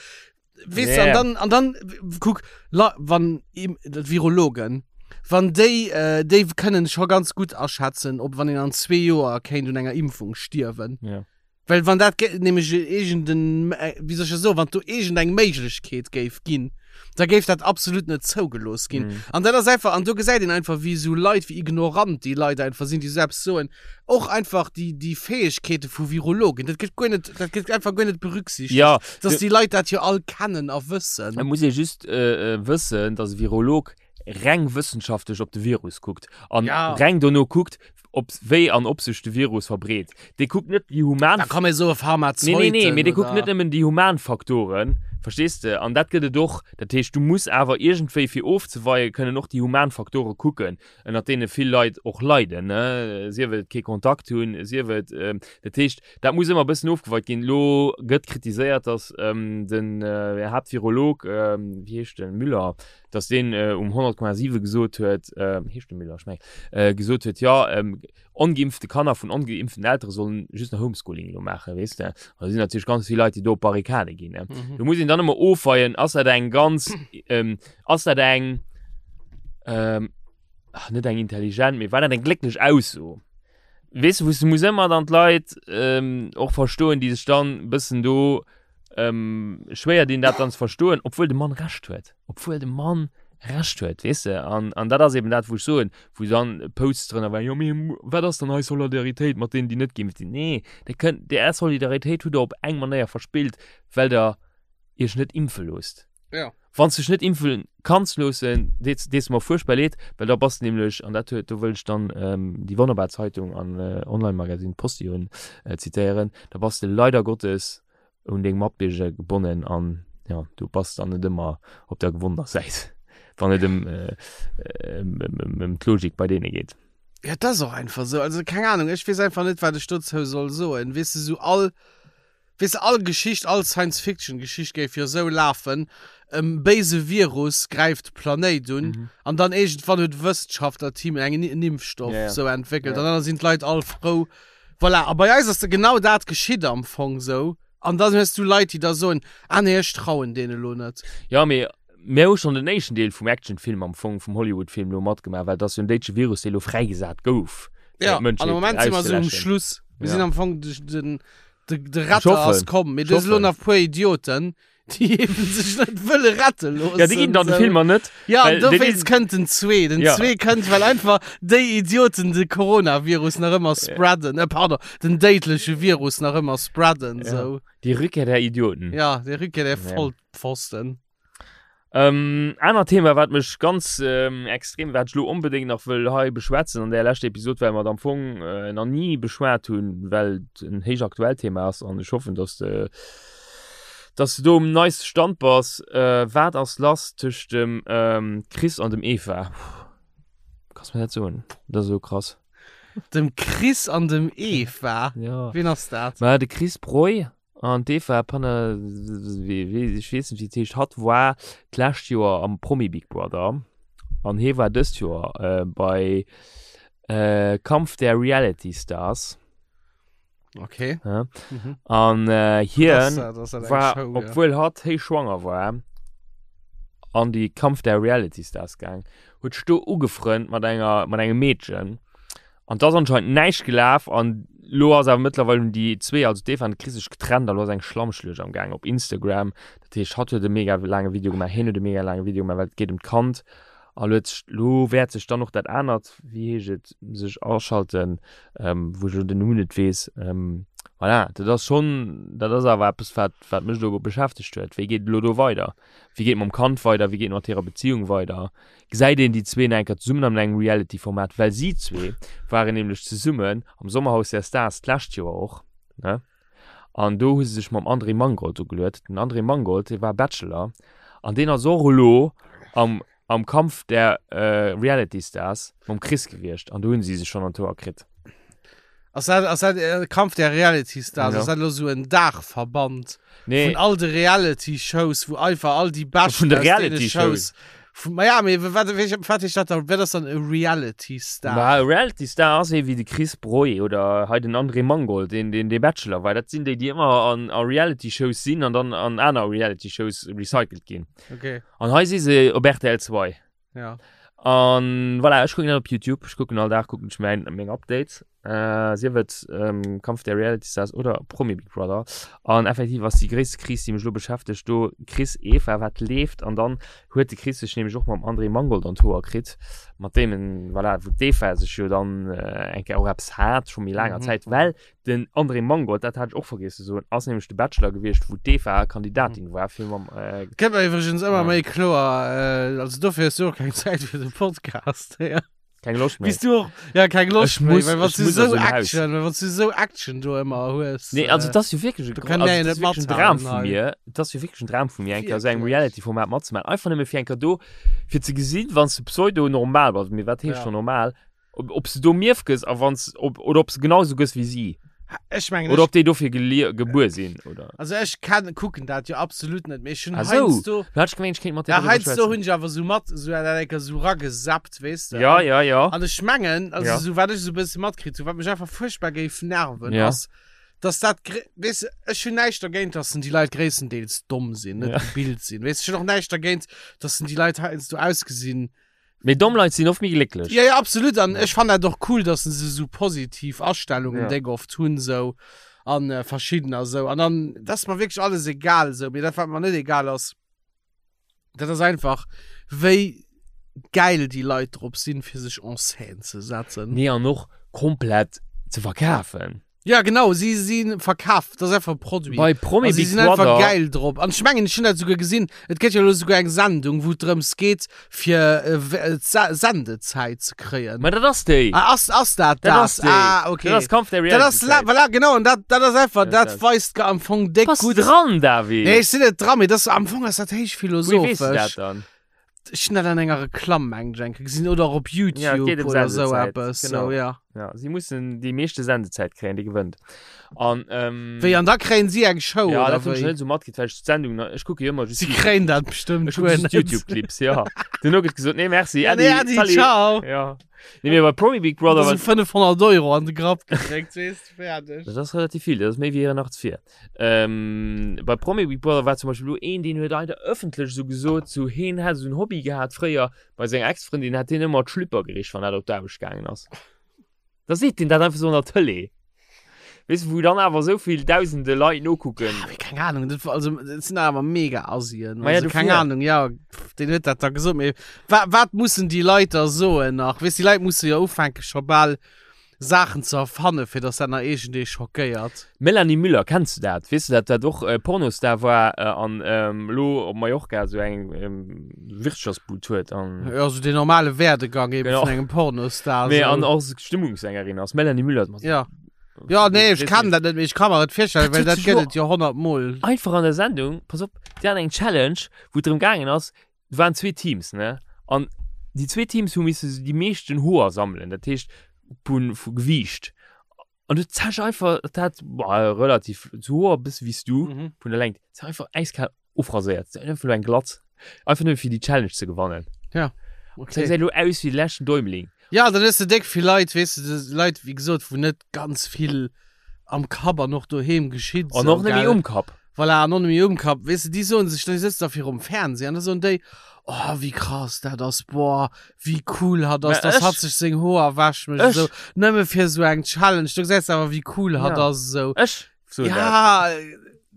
weess de, Ja, an ja. dann, an dann, kuck, la, wann im, d'Virologen, wann déi, äh, déi kënnen scho ganz gutt aschätzen, ob wann een an zwee Joer kéint un enger Impfung stierwen. Ja. Well wann dat nämlech iergenden, wéi soll ech dat soen, wann do iergendeng Méiglechkeet géif ginn, da géif dat absolut net zougelooss ginn. Mm. An dat ass einfach, an do gesäit een einfach, wéi esou Leit, wéi ignorant déi Leit einfach sinn, déi esou eppes soen. Och einfach déi, déi Fäegkeete vu Virologen, dat gëtt guer net, dat gëtt einfach guer net berücksichtegt, ja, dass déi Leit dat jo all kennen a wëssen. Et muss ee just äh, wëssen, dass e Virolog. reng wëssenschaftlech op de Virus kuckt an Ja. reng dono kuckt, ob wéi an ob sech de Virus verbreet. Dee kuckt net déi human Da kann mir so e Nee, Pharmazeuten nee, nee, mee dee kuckt oder- net nëmmen déi human Faktoren, verstees de? An dat gëtt et och. Dat heescht, du muss awer iergendwéi, fir ofzeweien, kënnen och déi human Faktore kucken, ënnert deene vill Leit och leiden, ne? Sief et kee Kontakt hunn, sief et, dat heescht, dat muss ëmmer e bëssen ofgeweit ginn. Elo gëtt kritiséiert, datt den Haaptvirolog, wéi heescht en, Müller, datt deen um 100,7 gesot huet, heescht de Müller, ech mengen, gesot huet, jo, ongeimpfte Kanner vun ongeimpften Eltere sollen just nach Homeschooling elo maachen, weess de. An da sinn natierlech ganz vill Leit, déi do op d'Barrikade ginn, ne. Do muss een dann ëmmer ofweien, ass dat eng ganz, ass dat eng, ach, net eng intelligent, mee war dat eng glécklech Ausso? Weess de, wou s de muss ëmmer dann d'Leit och verstoen, déi sech dann e bëssen do schwéier dinn, dat dann ze verstoen, obwuel de Mann Recht huet, obwuel de Mann Recht huet, weess de. An, an dat ass eben dat, wou ech soen, wou dann Posts drënner waren, jo mee wat ass dann hei Solidaritéit mat deenen, déi net geimpft sinn? Nee, der kënnt, déi Är Solidaritéit hutt Der op eng Manéier verspillt, well Der Iech net impfe loosst. Ja. Wann s de dech net impfe kanns loossen, deet dees mer fuerchtbar leed, well da bass de nämlech, an dat huet, do wëll ech dann déi wonnerbar Zeitung an Online-Magazine Postillon zitéieren, da bass de leider Gottes un deng Matbierger gebonnen an jo, du bass dann net ëmmer op der gewonnener Säit, wann et ëm ëm d'Logik bei deene geet. Ja, et ass och einfach esou. Also keng Ahnung, ech weess einfach net, wat ech dozou soll soen. Weess de, esou all Weess de, all Geschicht, all Science-Fiction-Geschicht géif jo esou lafen, e béise Virus gräift de Planéit un an dann iergendwann huet e Wëssenschaftlerteam eng en Impfstoff Ja, ja. esou entwéckelt Ja. an dann sinn d'Leit all frou. Voilà, a bei eis ass da genau dat geschitt am Fong esou. An dann hues du Leit, déi da soen, ah nee, ech trauen deene lo net. Ja, mee mir hu schonn den éischten Deel vum Actionfilm am Fong, vum Hollywood-Film elo matgemaach, well et ass jo en déitsche Virus, dee lo fräigesat gouf, fir Ja, an d'Mënschheet am Moment si mer esou um auszeläschen. Schluss. Mir Ja. sinn am Fong de, den, De, de Ech Retter hoffen. ass komm. Mee do Ech si lo hoffen. nach puer Idioten, déi eben sech net wëlle rette loossen. Ja, déi ginn dann de sou. Filmer net. Ja, an well déi dowéinst ginn- kënnt den zwee. Den Ja. zwee kënnt, well einfach déi Idioten de Coronavirus nach ëmmer spreaden. Äh, pardon, den déidleche Virus nach ëmmer spreaden, Ja. sou. Die Rückkehr der Idioten. Ja, déi Rückkehr der Ja. Vollpfosten. Ähm, anert Thema, wat mech ganz ähm, extrem, wat ech lo onbedéngt nach wëll hei beschwätzen an der leschter Episod, well mer et am Fong äh, nach ni beschwat hunn, well et en héich aktuellt Thema ass an ech hoffen, dass de dass du do um neiste Stand bass. Äh, wat ass lass tëscht dem ähm, Chris an dem Eva? Puh, Kanns mir dat soen? Dat ass esou krass. Dem Chris an dem Eva? Ja. Wien ass dat? Ma de Chris Breu An d'Eva Panne, ech weess net wéi et heescht, hatt war d'lescht Joer am Promi Big Brother an hie war dëst Joer bei Kampf der Reality Stars. Okay. Ja. Mhm. An hien Das, das eng war, Show, ja. obwuel hatt héich schwanger war, an déi Kampf der Reality Stars gaang, huet sech do ugefrënnt mat enger, mat engem Meedchen. An 't ass anscheinend näischt gelaf an lo ass awer mëttlerweil hunn déi zwee, also d'Eva an de Chris sech getrennt a lo ass eng Schlammschluecht am gaang op Instagram. Dat heescht hatt huet e mega laange Video gemaach, hien huet e mega laange Video gemaach, well et geet ëm d'Kand a lo huet sech, lo wäert sech dann och dat anert, wéi heescht et, sech aschalten, wou ech elo den Numm net weess. Voilà, dat ass schonn, dat ass awer eppes wat wat mech elo beschäftegt huet. Wéi geet et elo do weider? Wéi geet et mam Kand weider? Wéi geet et mat hirer Beziung weider? Gesäit een déi zwee nach eng Kéier zesummen an engem Reality-Format, well si zwee waren nämlech zesummen am Sommerhaus der Stars d'lescht Joer och, ne? An do hu se sech mam André Mangold ugeluet. Den André Mangold, dee war Bachelor an deen ass och elo am am Kampf der Reality Stars mam Chris gewiescht an do hunn si sech schonn an d'Hoer kritt. Ass dat, ass dat äh, Kampf der Reality Stars? Ja. Ass dat lo sou en Daachverband Nee. vun all de Reality Shows, wou einfach all déi Beschten Vun de aus deene Reality Shows. Vun, ma ja, mee wat, wat heescht dat dann? Wat ass dann e Reality Star? Ma e Reality Star ass ee wéi de Chris Breu oder hei den André Mangold, deen, deen dee Bachelor war. Dat sinn déi, déi ëmmer an, a Reality Shows sinn an dann an aner Reality Shows recycelt ginn. Okay, An hei si se op rtl 2. ja. An voilà, ech kucken dat op YouTube. Ech kucken all Dag kucken ech mäin, meng Updates. Äh, sief et ähm, Kampf der Reality Stars oder Promi Big Brother. An effektiv ass déi gréisste Kris, déi mech lo beschäftegt, do Chris Eva, wat leeft. An dann huet de Chris sech nämlech och mam André Mangold an d'Hoer kritt, mat deem en, voilà, wou d'Eva sech jo dann äh, eng Kéier och eppes hat, scho méi laanger Mhm. Zäit, well den André Mangold, dat hat ech och vergiess ze soen, ass nämlech de Bachelor gewiescht, wou d'Eva Kandidatin war fir mam äh, Gëtt mer iwwregens ëmmer Ja. méi kloer, äh, also dofir hues du och keng Zäit fir de Podcast. Ja. Keng Loscht méi. Bis du och, ja, keng Loscht Ech méi, muss- well wann ech du muss so aus dem Haus. Action, well wann du so Action do ëmmer hues. Nee, also äh, das ist jo wirklich do also, kann der jo das net ist wirklich ein mathalten Dram vu hei. mir. Das ist jo wirklich ein Dram vu mir, eng Kéier esou engem Wirklich? Reality-Format matzemaachen. Einfach nëmme fir eng Kéier do, fir ze gesinn, wann s du pseudo-normal bass, mee wat heescht Ja. scho normal, ob, ob s du do mierf gëss a wann s, ob, oder ob s du genau esou gëss wéi si. Ech mengen, Oder ech, ob déi dofir gelie gebuer sinn, oder. also ech kann, kucken dat jo absolut net, mee ech hunn Ah sou. heiansdo, Du hat ech gemengt, ech kéint mat dir ja, driwwer heiansdo schwätzen. hunn ech awer sou mat, sou dat eng Kéier sou ragesappt, weess de. Ja, An, ja, ja. an ech mengen, also Ja. sou wat ech sou e bësse matkritt hunn, wat mech einfach fuerchtbar géif nerven, Ja. ass, dass dat, gré- weess de, ech hunn näischt dergéint, dass déi Leit gréisstendeels domm sinn, net Ja. gebilt sinn, weess de, ech hunn och näischt dergéint, dass déi Leit heiansdo ausgesinn, Mee domm Leit sinn oft méi glécklech. Ja, ja, absolut. An ech fannen dat och cool, dass se sou positiv Astellungen Ja. déck oft hunn sou an äh, verschiddener sou. An dann, dat ass mer wierklech alles egal sou. Mee dat wat mer net egal ass, dat ass einfach wéi gäil déi Leit drop sinn, fir sech en scène ze setzen. Nee, an och komplett ze verkafen. Ja genau, si si verkaf, dat ass einfach e Produit. Bei Promi Also, si Big sinn einfach Brother. geil drop. An ech mengen, ech hunn dat souguer gesinn, et gëtt jo elo souguer eng Sendung, wou et drëms geet, fir äh, w- äh, d'Se- Sendezäit ze kréien. Ma dat ass déi. Ah, ass, ass dat Dat dat? ass déi. Ah, okay. Dat ass Kampf der Dat ass, la, Reality. voilà, genau, an dat, dat ass einfach, Dat dat ass dat. weist am Fong déck Bass gutt. dran, David. Nee, ech sinn net dran, mee das, am Fong ass dat héich Wéi weess du dat philosophesch. dann? Ech hunn dat an enger Reklamm, mengen ech, eng Kéier gesinn, oder och op Ja, et YouTube geet ëm oder sou Sendezäit, eppes. genau. Sou, ja. Ja, si mussen déi meeschte Sendezäit kréien, déi gewënnt. An, ähm, Wéi, an da kréien si eng Show, ja, oder dat hunn ech wéi? net sou matkritt, well ech d'Sendung, nach- ech kucke jo ëmmer just Si kréien dat bestëmmt Ech kucke guer just net. YouTube-Clips, ja. Duerno gëtt gesot, nee, merci, Ja, Äddi, nee, Äddi, salut. ciao. Ja. Nee, mee bei Promi Big Brother Da sou war 500 Euro an de Grapp gedréckt, weess de, fäerdeg. Dat ass relativ vill, dat ass méi wéi 84. Ähm, bei Promi Big Brother war zum Beispill elo een, deen huet einfach ëffentlech esou gesot, sou heen hätt esou en Hobby gehat fréier bei senger Ex-Frëndin, hätt hien ëmmer d'Schlüpper gericht, wann dat op d'Aarbecht gaangen ass. Da seet deen dat einfach sou an der Tëlee. Weess de, wou dann awer esou vill dausende Leit nokucken. Ah, mee keng Ahnung, dat war, also, dat sinn awer mega Asien. Ma ja, Also, keng dofir. Ahnung, ja, pff, deen huet dat da gesot, mee wa, wat mussen déi Leit da soen nach? Weess, déi Leit musse jo ufänke scho bal Saachen ze erfanne fir dass dat nach iergendee schockéiert. Melanie Müller, kenns du dat? Weess du dat dat och Pornostar war an elo op Mallorca esou eng Wirtschaftsbud huet an. Jo, esou den normale Werdegang eben Genau. vun engem Pornostar. Mee esou. an och Stimmungssängerin ass. Melanie Müller. Ja. Ja, nee, ech kennen dat net, mee ech ka mer et virstellen, Dat well huet dat sech gëtt jo- et jo 100 mol. Einfach an der Sendung, pass op, déi haten eng Challenge, wou et drëm gaangen ass, et waren zwee Teams, ne? An déi zwee Teams hu misse déi meeschten Hoer sammelen, dat heescht vu vu Gewiicht. An du zech einfach, dat hat boah, relativ zu Hoer bësse wéi s du, Mhm. vun der Längt, se einfach eiskal ofraséiert, se einfach elo eng Glatz, einfach nëmme fir déi Challenge ze gewannen. Ja, Se okay. gesäit elo aus wéi de leschten Däumling. Ja, dann hues de déck vill Leit, weess de, des Leit, wéi gesot, wou net ganz vill am Kapp an och doheem geschitt. An och net méi um Kapp. Voilà, an och net méi um Kapp. Weess de, déi soen sech, déi sëtzen da virum Fernseh an da soen déi, oh, wéi krass dat ass, boah, wéi cool hatt ass, Mä dass ech- hatt sech seng Hoer wäscht mécht, Ech- esou, nëmme fir esou eng Challenge. Du gesäis awer, wéi cool hatt Ja. ass, esou. Ech soen dat. Ja,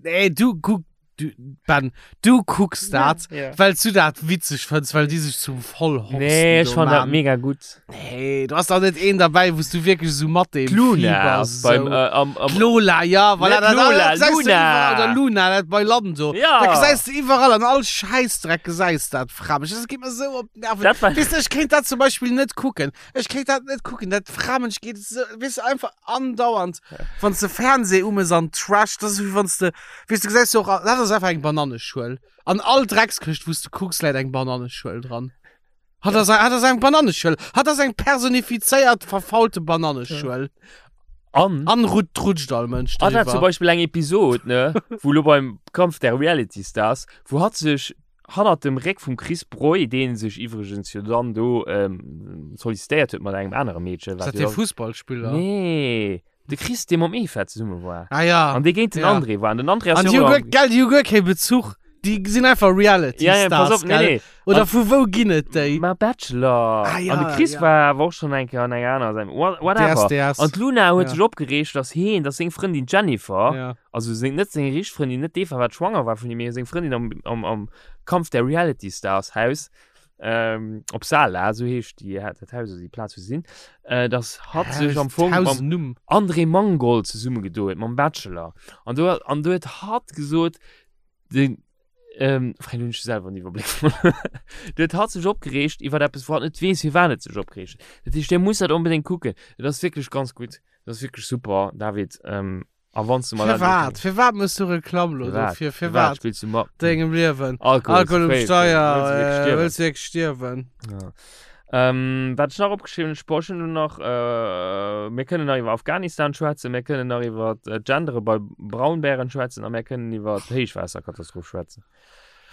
nee, du kuck, du, Ben, du kucks dat, Ja. well du dat witzeg fënns, well déi sech zum Vollhorsten Nee, ech do fand dat man. mega gutt. Nee, du hast auch net een dabei, wous du wierklech esou mat deem D'Luna Fieber ass beim, sou. äh, am, am, D'Lola, ja, voilà, Net dat, Lola, dat gesäis du Luna. iwwerall, oder Luna, dat bei Lando. Ja. Dat gesäis du iwwerall, an all Schäissdreck gesäis dat, Framech. Dat geet mer sou op d'Nerven. Dat war- Weess du, ech kéint dat zum Beispill net kucken. Ech kéint dat net kucken, dat Framech geet sou, weess du, einfach andauernd, wann s de Fernseh umes an Trash, dat ass wéi wann s de, weess du, gesäis du och, dat ass einfach eng Bananneschuel. An all Dreckskëscht, wou s du kucks, läit eng Bananneschuel dran. Hatt ass, hatt ass eng Bananneschuel. Hatt ass eng personifizéiert verfaulte Bananneschuel. An, An rut, rutscht all Mënsch an hat zum driwwer. Beispill eng Episod, ne, wou lo beim Kampf der Reality Stars, wou hatt sech hannert dem Réck vum Chris Breu, dee sech iwwregens jo dann do ähm, sollicitéiert huet mat engem anere Meedchen, Ist wat dat jo dee dann- Fussballspiller? Nee, de Chris, dee mam Eva zesumme war. Ah ja. An dee géint den Ja. André war. An den André ass An jo déi hu och guer, am- gell, déi hu guer kee Bezuch. Déi sinn einfach Reality Ja, ja, pass Stars, op, nee, gell? nee. Oder An- vu wou ginn et déi? Ma Bachelor. Ah, ja, an de Chris ja. war awer och schonn eng Kéier an enger anerer Sendung. What, whatever. DSDS. An d'Luna huet Ja. sech opgereegt, dass heen, dass seng Frëndin Jennifer, Ja. also seng, net seng richteg Frëndin, net d'Eva, wat schwanger war vun him, mee seng Frëndin am, am, am Kampf der Reality Stars Haus, ähm, op Sala, esou heescht déi, dat Haus oder déi Plaz, wou se sinn, äh, dass hatt sech am Fong mam Numm. André Mangold zesummegedo huet, mam Bachelor. An do, an do huet hatt gesot, den, ähm, Frei, hunn ech selwer den Iwwerbléck verluer. Do huet hatt sech opgereegt iwwer eppes, wou hatt net weess, firwat et sech opgereegt huet. Dat heescht, Dir musst dat onbedéngt kucken. Et ass wierklech ganz gutt. Et ass wierklech super, David. Ähm, a wann s du mer dat Firwat? Firwat mëss du Reklamm lo Firwat? dofir? Firwat Firwat? spills du mat? Dengem Liewen. Alkohol, Alkohol um fréi, Steier, wëlls du wierklech äh, stierwen? wëlls du wierklech stierwen? Ja. Ähm, wat ech nach opgeschriwwen hunn, Sport, ech hunn nach, äh, mir kënnen nach iwwer Afghanistan schwätzen, mir kënnen nach iwwer äh, Gendere bei Braunbären schwätzen a mir kënnen iwwer d'Héichwaasserkatastroph schwätzen.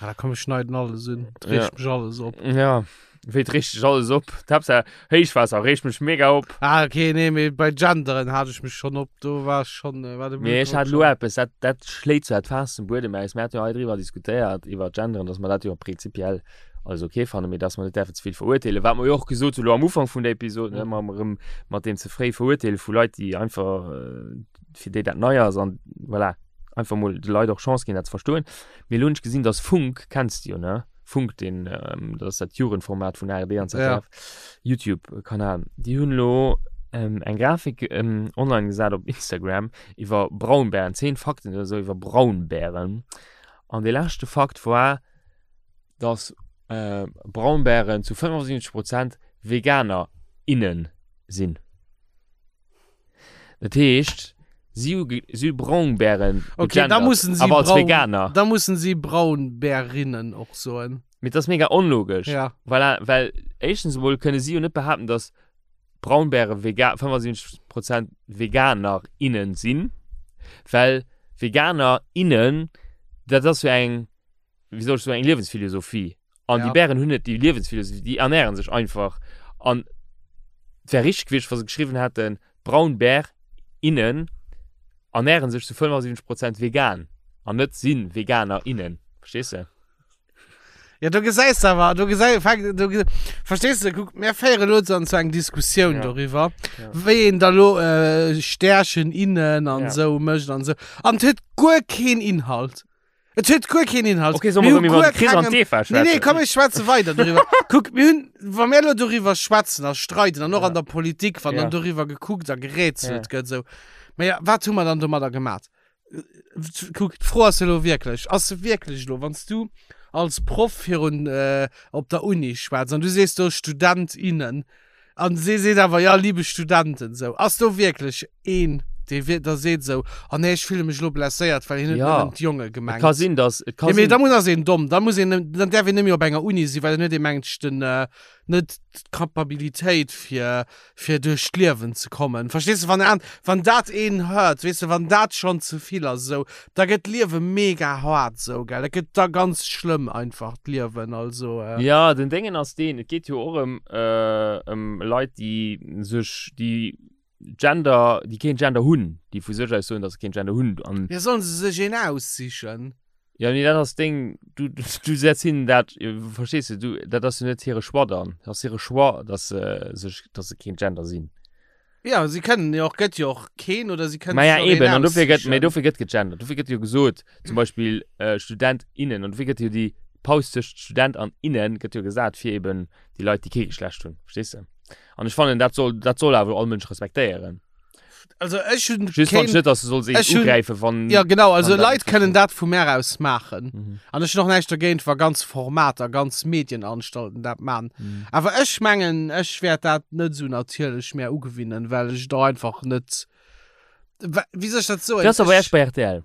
Ah, da komm, ech schneiden alles un. Et reegt mech alles op. Ja, wéi et reegt dech alles op? D'Haaptsaach Héichwaasser reegt mech mega op. Ah, okay, nee, mee bei Genderen hat ech mech schonn op. Do war ech schonn, äh, war de Mee ech Blutdrock hat elo schonn. eppes, dat, dat schléit zwar d'Faass zum Buedem aus. Mir haten jo hei driwwer diskutéiert, iwwer Genderen, dass mer dat jo prinzipiell alles okay fannen, mee dass mer net däerfen ze vill verurteelen. Wat mer jo och gesot hu lo am Ufank vun der Episod, ne, mam erëm mat deem ze fréi Verurteele vu Leit, déi einfach, äh, fir déi dat nei ass an voilà, einfach mol de Leit och Chance ginn, dat ze verstoen. Mee elo hunn ech gesinn, dass Funk, kenns de jo, ne? Funk, deen, ähm, dat ass dat Jugendformat vun ARD an ZDF, YouTube-Kanal, déi hunn elo ähm, eng Grafik ähm, online gesat op Instagram iwwer Braunbären, 10 Fakten oder sou iwwer Braunbären. An dee leschte Fakt war, dass äh, Braunbären zu 75 Prozent Veganer, innen sinn. Dat heescht, si hu si hu Braunbären Okay, da gegendert, mussen si awer als Braun, Veganer. da mussen si Braunbärinnen och soen. Mee dat ass mega onlogesch. Ja. Voilà, well éischtens emol kënne si jo net behaapten, dass Braunbäre vega 75 Prozent Veganer, innen sinn, well Veganer, innen, dat ass jo eng wéi soll ech soen, eng Liewensphilosophie. An Ja. déi Bären hunn net déi Liewensphilosophie, déi ernähren sech einfach. An et wär richteg gewiescht, wa se geschriwwen hätten, Braunbär, innen ernähren sech zu 75 Prozent vegan an net sinn Veganer, innen. Verstees de? Ja, do gesäis de awer, do gesäi, fänk, do ge, verstees de, kuck, mir féiere lo dann zu eng Diskussioun Ja. doriwwer, Ja. wéi een da lo äh, Stärchen innen an Ja. sou mécht an sou. An et huet guer keen Inhalt. Et huet guer keen Inhalt. Okay, soll mer Mir erëm hu iwwer guer de Chris an kengem- d'Eva Nee, nee, schwätzen? komm, ech schwätze weider doriwwer. Kuck, mir hunn, wa mir elo doriwwer schwätzen a streiden an och Ja. an der Politik, wann Ja. dann doriwwer gekuckt a gerätselt Ja. gëtt, esou. Mä ja, wat hu mer dann domadder gemat? Kuck, d'Fro ass elo wierklech, ass se wierklech elo, wann s du als Proff virun, äh, op der Uni schwätz an du sees do Student, innen, An si seet awer, ja, liebe Studenten, sou. Ass do wierklech een, dee wier, da seet sou, oh nee, ech fille mech elo blesséiert, well hien huet Ja. nëmmen d'Jonge Et gemengt. ka sinn, dass, et ka Ja, mee sinn. da muss ass een domm, da muss een, dann däerf een net méi op enger Uni sinn, well dann huet ee mengt ech den, net d'Kapabilitéit fir, fir duerch d'Liewen ze kommen. Verstees de, wann an, wann dat een hört, weess de, wann dat schonn ze vill ass esou, da gëtt d'Liewe mega hart esou, gell, dat gëtt da ganz schlëmm einfach d'Liewen, also. Ja, den Déngen ass deen, et geet jo och ëm ëm Leit, déi sech, déi Gender, déi keen Gender hunn, déi vu sech aus soen, datt se keen Gender hunn an. Ja, sollen se sech een aussichen? Ja, mee dat ass deng, du, du setz hinnen dat, verstees de, du, dat ass jo net hire Choix dann, dat ass hire Choix, datt se sech, datt se keen Gender sinn. Ja, si kënnen jo och, gëtt jo och keen oder si kënnen Maja sech och een eben, an dofir gëtt, mee aussichen. dofir gëtt gegendert, dofir gëtt jo gesot, zum Beispill äh, Student, innen, an dofir gëtt jo déi Paus tëscht Student an innen gëtt jo gesat fir eben déi Leit, déi kee Geschlecht hunn, verstees de? An ech fannen, dat soll, dat soll awer all Mënsch respektéieren. Also ech hunn Just keen, fand ech net, dass du solls een ech hunn- ugräifen, wann. Ja genau, also wann dat Leit net kënnen dat vu mär aus maachen. Mhm. An ech hunn och näischt dergéint, wa ganz Formater, ganz Medienanstalten dat man. Mhm. Awer ech mengen, ech wäert dat net esou natierlech mär ugewinnen, well ech et och einfach net, wa- wéi soll ech dat soen? Dat ass awer Ech- erscht bei rtl.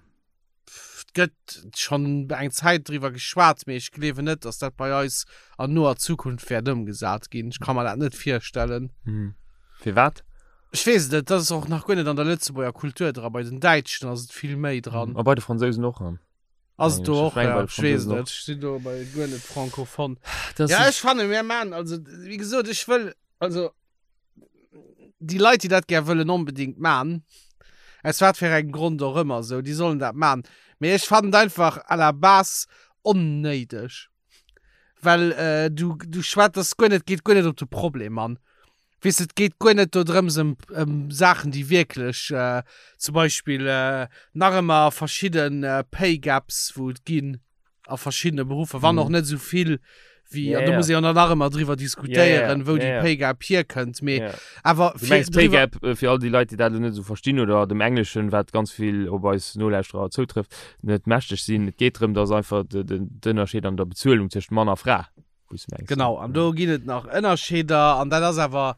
Et gëtt schonn eng Zäit driwwer geschwat, mee ech gleewen net, datt dat bei eis an noer Zukunft wäert ëmgesat ginn. Ech ka mer dat net virstellen. Mhm. Firwat? Ech weess et net, dat ass och nach guer net an der Lëtzebuerger Kultur dra. Bei den Däitschen ass et vill méi dran. A bei de Fransousen och. Ass et do Ech och, meng ja. bei de Ech weess et Fransousen net. och. Ech sinn do bei guer net francophone. Das Ja, ist, ech fanne mir man, also wéi gesot, ech wëll, also déi Leit, déi dat gär wëllen onbedingt man, aus wat fir engem Grond och ëmmer esou, déi sollen dat man. Mee ech fannen et einfach à la base. Onnéideg. Well äh, du, du schwätz das guer net, geet guer net op de Problem an. Weess de, et geet guer net do drëms ëm, ëm Saachen, déi wierklech äh, zum Beispill äh, nach ëmmer verschidden äh, Pay Gaps, wou et ginn a verschiddene Beruffer, wann och net esou vill wéi, Ja, an do ja. muss ee jo nach ëmmer driwwer diskutéieren, Ja, ja, wou déi ja, ja. Pay Gap hierkënnt, mee Ja. awer Du fir mengs Pay driwwer, Gap, äh, fir all déi Leit, déi dat elo net esou verstinn oder dem Engleschen, wat ganz vill op eis Nolauschterer zoutrëfft, net mächteg sinn. Et geet drëm, dass einfach de, de, d'Ënnerscheed an der Bezuelung tëscht Mann a Fra, wou s du mengs. Genau, an do ginn et nach Ënnerscheeder an dat ass awer,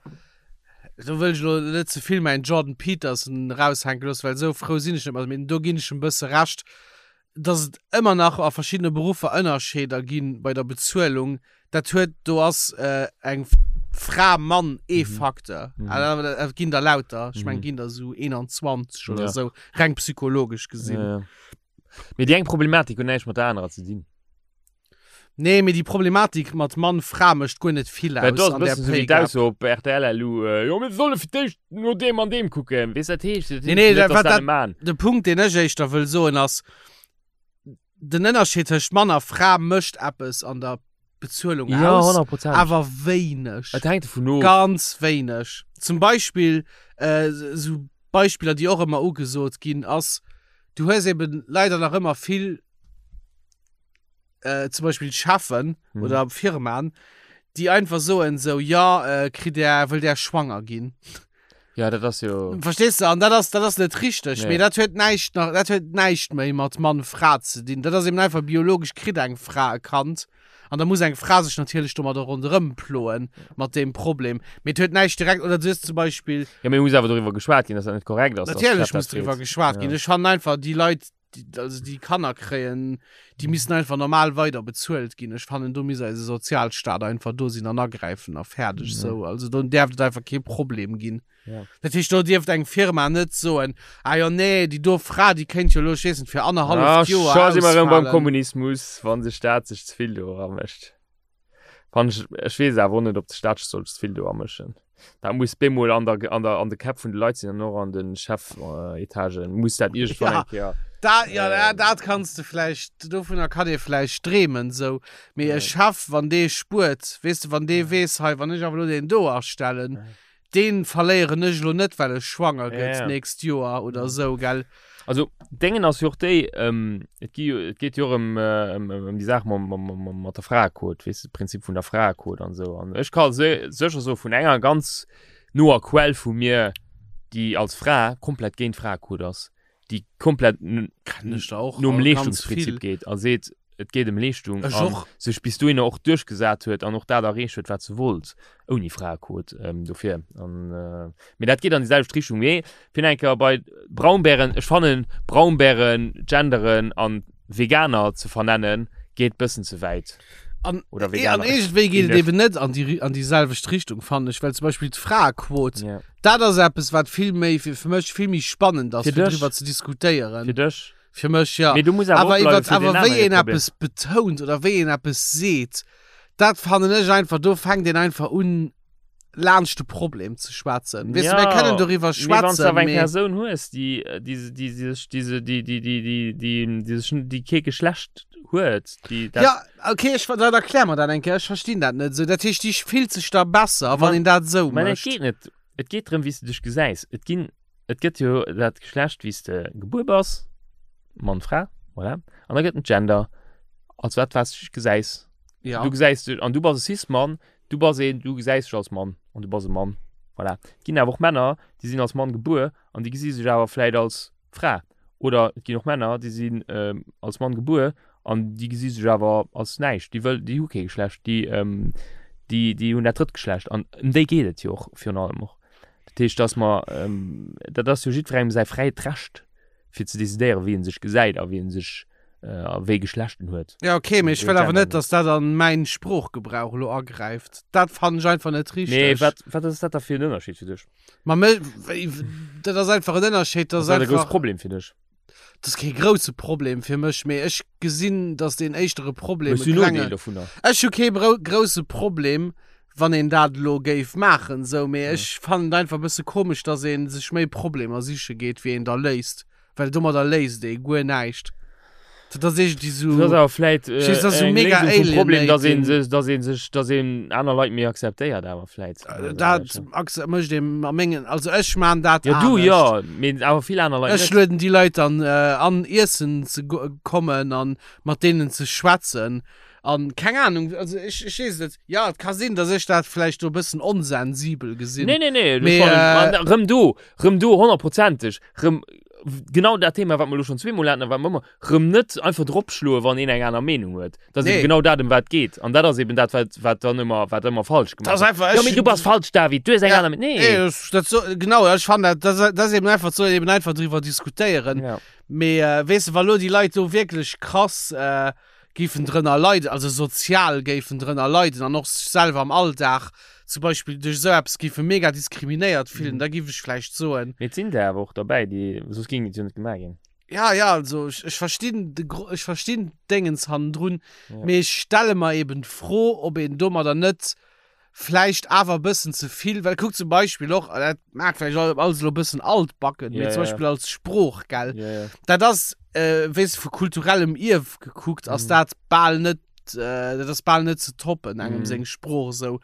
do wëll ech elo net ze vill mäin Jordan Peterson eraushänke loossen, well esou frou sinn ech net mat him, mee do ginn ech em e bësse Recht, dass et ëmmer nach a verschiddene Beruffer Ënnerscheeder gi bei der Bezuelung, dat huet, do ass eng Fra, Mann ee Facteur. Et ginn der lauter, ech mengen, et ginn der esou 21 oder esou, reng psychologesch gesinn. Mee déi eng Problematik huet näischt mat der anerer ze dinn. Nee, mee déi Problematik mat Mann, Fra mécht guer net vill Well do aus ass e an där bëssen esou wéi Pay Gap. d'Ausso op rtl elo, jo mir solle fir d'éischt no deem an deem kucken. Weess dat heescht, dat Nee, heescht nee, net, dat, dass wat dat dat, net man. de Punkt, deen ech éischter wëll soen, ass, den Ënnerscheed tëscht Mann a Fra mécht eppes an der Bezuelung Ja, aus, 100%. awer wéineg. Et hänkt dovun of. Ganz wéineg. Zum Beispill, äh, esou Beispiller, déi och ëmmer ugesot ginn, ass, du hues eben leider nach ëmmer vill, äh, zum Beispill Cheffen mhm. oder Firmaen, déi einfach soen so ja äh, kritt der wëll der schwanger ginn. Ja, dat ass jo. Verstehst du? An dat ass, dat ass net richteg. Nee. Mee dat huet näischt nach, dat huet näischt méi mat Mann Fra ze dinn. Dat ass eben einfach biologesch kritt eng Fra e Kand. An da muss eng Fra sech natierlech domadder ronderëm ploen mat deem Problem. Mee et huet näischt direkt oder du hues zum Beispill. Ja, mee muss awer doriwwer geschwat ginn, dass dat net korrekt ass. dass Natierlech d'Chef dat muss doriwwer freet. geschwat Ja. ginn. Ech fannen einfach déi Leit, déi, also déi Kanner kréien, déi missten einfach normal weider bezuelt ginn. Ech fannen, do misst eise Sozialstaat einfach do sinn an agräifen a fäerdeg Ja. sou. Also do däerft et einfach kee Problem ginn. Ja. Dat heescht, do dierft eng Firma net soen, ah jo nee, déi do Fra, déi kéint jo elo, ech weess net, fir Ah, annerhalleft Joer scho si mer erëm beim ausfalen. Kommunismus, wann de Staat sech ze vill do eramëscht. Wann ech, ech weess awer och net, ob de Staat sech soll ze vill do amëschen. Dat muss bemol an der, an der, an de Käpp vun de Leit sinn an och an de Chefetagen muss dat iergendwann Ja. eng Kéier. Da, ja, da, Ähm. dat kanns de vläicht, dovunner kann ee vläicht dreemen, sou. Mee e Ja. Chef, wann dee spuert, weess de, wann dee weess, hei, wann ech awer elo deen do astellen, Ja. Deen verléieren ech elo net well e schwanger gëtt Ja. nächst Joer oder sou, gell? Also Déngen ass jo och déi, ähm, et gi jo, et geet jo och ëm, ëm, ëm déi Saach mam, mam, mam, mat der Fraequot, weess de, Prinzip vun der Fraequot an esou. An ech ka se sécher soe vun enger ganz noer Quell vu mir, déi als Fra komplett géint d'Fraequot ass, déi komplett Kennen ech der och nom ganz Leeschtungsprinzip vill. geet a seet, et geet ëm Leeschtung Ech an och. sech bis dohinner och duerchgesat huet an och dat erreecht huet, wat se wollt, ouni Fraequot ähm, dofir. An, äh, mee dat geet an déi selwecht Richtung. Mee fir nach eng Kéier bei Braunbären, ech fannen Braunbären, Genderen an Veganer ze vernennen, geet bëssen ze wäit. An, Oder eh, an Veganer. iergendwéi geet et Inne. eben net an déi, an déi selwecht Richtung, fannen ech, well zum Beispill d'Fraequot, Ja. dat ass eppes, wat vill méi, fir, fir mech vill méi spannend ass, Fir fir dech? driwwer ze diskutéieren. Fir dech? Fir mech, ja. Mee du muss awer Awer opbleiwen iwwert, fir den awer wéi anere een Problem. eppes betount oder wéi een eppes seet, dat fannen ech einfach, do fänkt een einfach un, laanscht de Problem ze schwätzen. Weess de, mir kënnen doriwwer Mee wann s du schwätzen, awer eng mee Persoun hues, déi, déi, déi sech, déi se, déi, déi, déi, déi, déi, déi sech, déi kee Geschlecht huet, déi dat. Ja, okay, ech, dann erklär mer dat eng Kéier, ech verstinn dat net esou. Dat heescht, déi fillt sech da besser, wann Ma- een dat esou Mä et mécht. geet net, et geet drëm, wéi s du dech gesäis. Et ginn, et gëtt jo dat Geschlecht, wéi s de gebuer bass, Mann, Fra, voilà. An da gëtt en Gender, als wat, wat s du dech gesäis. Ja. Du gesäis dech, an du bass e Cis-Mann, du bass een, du gesäis dech als Mann an du bass e Mann, voilà. Et ginn awer och Männer, déi sinn als Mann gebuer an déi gesi sech awer vläit als Fra. Oder et ginn och Männer, déi sinn als Mann gebuer an déi gesi sech awer als näischt, déi wëll, déi hu kee Geschlecht, déi, déi, déi hunn dat drëtt Geschlecht. An ëm déi geet et jo och virun allem och. Dat heescht, dass mer, dat ass jo jiddwerengem säi fräit Recht, fir ze decidéieren, wéi en sech gesäit a wéi en sech, a wéi Geschlecht en huet. Ja, okay, mee ech Wéi wëll awer Gender net, dass dat an mäin Sproochgebrauch elo agräift. Dat fannen ech einfach net Mee richteg. wat, wat ass dat da fir en Ënnerscheed fir dech? Ma me, wéi, dat ass einfach en Ënnerscheed, dat Ass ass dat e grousse einfach, Problem fir dech? dat ass kee grousse Problem fir mech, mee ech gesinn, dass deen éischtere Problem Hues e du Nodeel klenge, dovunner? ech hu kee brou, grousse Problem, wann een dat elo géif maachen, sou, mee ech fannen et einfach e bësse komesch, dass ee sech méi Problemer siche geet, wéi een der léist, well domadder léist ee guer näischt. Dat ass iergendwéi sou. Dat ass awer vläit äh, Verstees, das ist so eng mega Léisung vum Problem, dass een alienating. sech, dass een sech, dass een aner Leit méi akzeptéiert awer vläit. Äh, Dat akze- mécht een a mengen, also ech maan dat Ja, du anescht. jo, mee awer vill aner Leit Ech net. lueden déi Leit dann äh, an iessen ze go- kommen an mat deenen ze schwätzen an keng Ahnung, also ech, ech weess et net. Ja, et ka sinn, dass ech dat vläicht do e bëssen onsensibel gesinn. Nee, nee, nee, Mee, das fannen, äh, man, rëm do, rëm do, honnertprozenteg, rëm genau dat Thema, wat mer elo schonn zweemol haten a wat mer ëmmer, rëm net einfach dropschloen, wann een eng aner Meenung huet. Dat ass Nee. eben genau dat, ëm wat et geet. An dat ass eben dat, wat, wat dann ëmmer, wat ëmmer falsch Dat gemaach ass gëtt. einfach, Jo, ech mee du bass falsch, David, du hues eng Ja. aner Meenung. Nee, Nee. das, dat so, genau, ech fannen dat, dat, dat ass eben einfach, soll een eben einfach driwwer diskutéieren. Ja. Mee äh, weess de, wa lo déi Leit do wierklech krass äh, géifen drënner leiden, also sozial géifen drënner leiden an och sech selwer am Alldag zum Beispill duerch esou eppes géife mega diskriminéiert fillen, Mhm. da géif ech vläicht soen, Mee et sinn der awer och derbäi, déi, soss géing et jo net gemaach ginn. ja, ja, also ech, ech verstinn de Gro ech verstinn d'Déngens hannendrun, Ja. mee ech stelle mer eben d'Fro, ob een domadder net vläicht awer e bëssen ze vill, well kuck zum Beispill och, dat mag vläicht alles elo e bëssen altbacken, mee Ja, zum ja. Beispill als Sprooch, gell, Ja, ja. dat ass, äh, weess de, vu kulturellem Ierf gekuckt, ass Mhm. dat bal net, äh, dat ass bal net ze toppen, engem Mhm. seng Sprooch esou.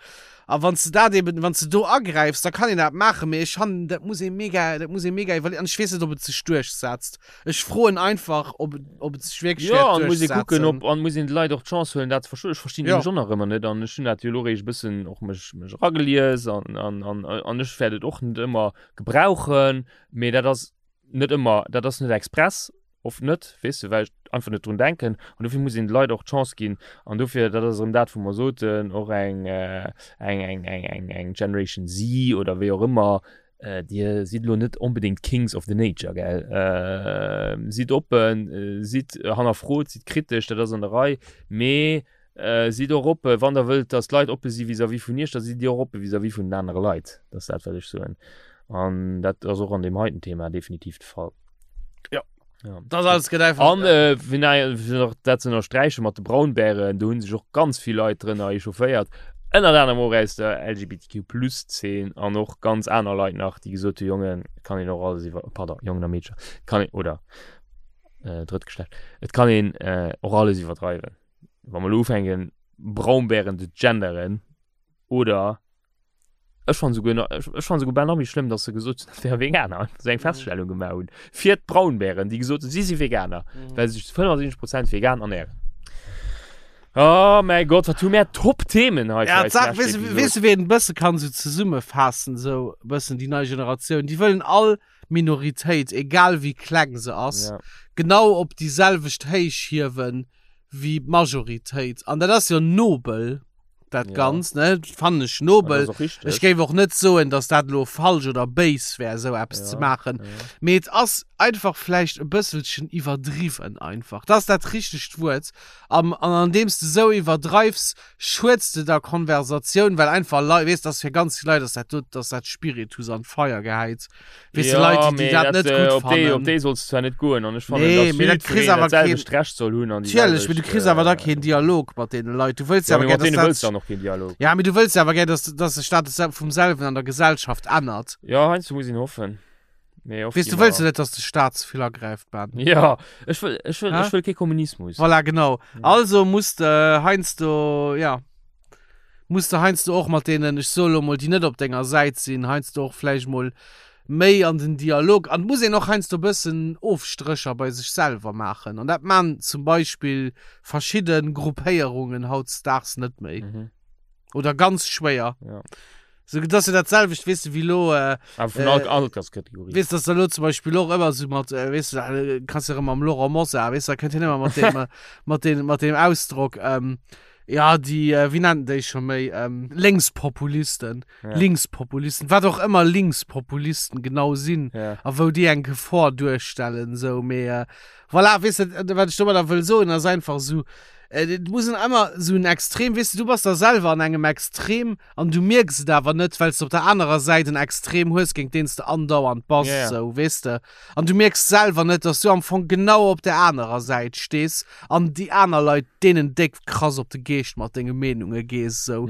A wann s de dat eben, wann s de do agräifs, da kann een dat maachen, mee ech fannen, dat muss ee mega, dat muss ee mega iwwerleeën. An ech weess net, ob et sech duerchsetzt. Ech froen einfach, ob, ob et sech wierklech Ja, wäert an muss ee kucken, duerchsetzen. ob, an muss een de Leit och d'Chance huelen, dat ze verstoen. Ech verstinn Ja. nämlech och nach ëmmer net an ech hunn dat jo elo eréischt e bëssen och mech, mech eragelies an, an, an, an ech wäert et och net ëmmer gebrauchen, mee dat ass net ëmmer, dat ass net express, oft net, weess de, well ech einfach net drun denken an dofir muss een de Leit och d'Chance ginn an dofir, dat ass erëm dat, wou mer soten, och eng, eng, eng, eng, eng, eng Generation Z oder wéi och ëmmer, Dir sidd elo net onbedéngt Kings of the Nature, gell? Sidd oppen, sidd hannerfrot, sidd kritesch, dat ass an der Rei, mee sidd och oppe wann der wëllt, datt d'Leit oppe si vis-à-vis vun iech, da sidd dir och oppe vis-à-vis vun den anere Leit. Dat ass dat, wat ech soen. An dat ass och an deem heiten Thema definitiv de Fall. Ja. Ja. Das alles gëtt einfach. An äh, fir nei- fir nach dat ze ënnersträichen mat de Braunbären, do hunn sech och ganz vill Leit drënner echaufféiert. Ënnert anerem och aus der LGBTQ-Plus-Zeen an och ganz aner Leit nach, déi gesot hu, Jongen, et kann een och alles iwwer, pardon, Jongen a Meedcher, et kann een, oder äh, drëtt Geschlecht, et kann een äh, och alles iwwerdreiwen. Wa mer elo ufänken, Braunbären ze genderen oder Ech fannen souguer nach, ech, ech fannen souguer bal nach méi schlëmm, dass se gesot hunn, dat wäre Veganer, dass se eng Feststellung gemaach hunn fir d'Braunbären, déi gesot hunn, si si Veganer, well se sech zu 75 Prozent vegan ernähren. Oh mäi Gott, wat hu mär Top-Themen hei fir Ja, eis d'Saach, lescht weess de, Episod. weess de, wéi een e bësse kann esou zesummefaassen, esou e bëssen déi nei Generatioun, déi wëllen all Minoritéit, egal wéi kleng se ass, Ja. genau op déi selwecht Héich hiewen wéi d'Majoritéit. An dat ass jo nobel, dat Ja. Ganzt, ne? Fannen ech An nobel. dat ass och richteg. Ech géif och net soen, dass dat elo falsch oder béis wär, esou eppes Ja, ze maachen. ja. Mee et ass einfach vläicht e bësselchen iwwerdriwwen einfach. Dat ass dat richtegt Wuert. Am, an andeems de esou iwwerdreifs, schueds de der Konversatioun, well einfach Leit, weess, dass fir ganz vill Leit ass dat do, dass dat Spiritus an d'Feier gehäit. Weess de, Leit, déi, déi mee dat net äh, gutt op déi, op fannen. déi solls du zwar net goen an ech fannen, Nee, dass mee dat kriss jiddwereen awer dat selwecht Recht soll hunn an déi Natierlech, mee du selwecht, kriss awer da äh, keen Dialog mat deene Leit. Du wëlls Ja, awer mee gär, mat deene dass wëlls dat du dann och keen Dialog. Ja, mee du wëlls awer gär, dass, dass sech dat sel- vum selwen an der Gesellschaft ännert. Ja, heiansdo muss een hoffen. Mee oft Weess gi du, wëlls mer- du net, dass de Staat ze vill agräift, Ben? Ja, ech wëll, ech wëll, Hä? ech wëll kee Kommunismus. Voilà, genau. Ja. Also muss de heiansdo, ja, muss de heiansdo och mat deenen, ech soe lo mol, déi net op denger Säit sinn, heiansdo och vläicht mol méi an den Dialog. An et muss een och heiansdo e bëssen Ofstrécher bei sech selwer maachen. An dat maan zum Beispill verschidde Gruppéierungen hautdesdaags net méi. Mhm. Oder ganz schwéier. Ja. So, dat ass jo dat selwecht, weess de, wéi lo, äh, Awer vun Äh, all Alterskategorie. Weess, dass da lo zum Beispill och ëmmer sou mat, äh, weess du, da kanns du erëm mam Laurent Mosar, weess du, da kënnt hien ëmmer mat deem, äh, mat deem, mat deem Ausdrock, ähm, ja, déi, äh, wéi nennt en déi scho méi, ähm, Lénkspopulisten, Ja. Linkspopulisten, wat och ëmmer Linkspopulisten genau sinn Ja. a wou déi eng Gefor duerstellen, sou, mee, äh, voilà, weess de, wat ech domadder wëll soen, ass einfach sou, äh, et muss en ëmmer sou en Extrem, weess de, du bass da selwer an engem Extrem, An du mierks et awer net, well s de op der anerer Säit en Extrem hues, géint deen s de andauernd bass, Ja, ja. sou, weess de. An du mierks selwer net, dass du am Fong genau op der anerer Säit stees an déi aner Leit, deenen déck krass op de Geescht mat denge Meenunge gees, sou.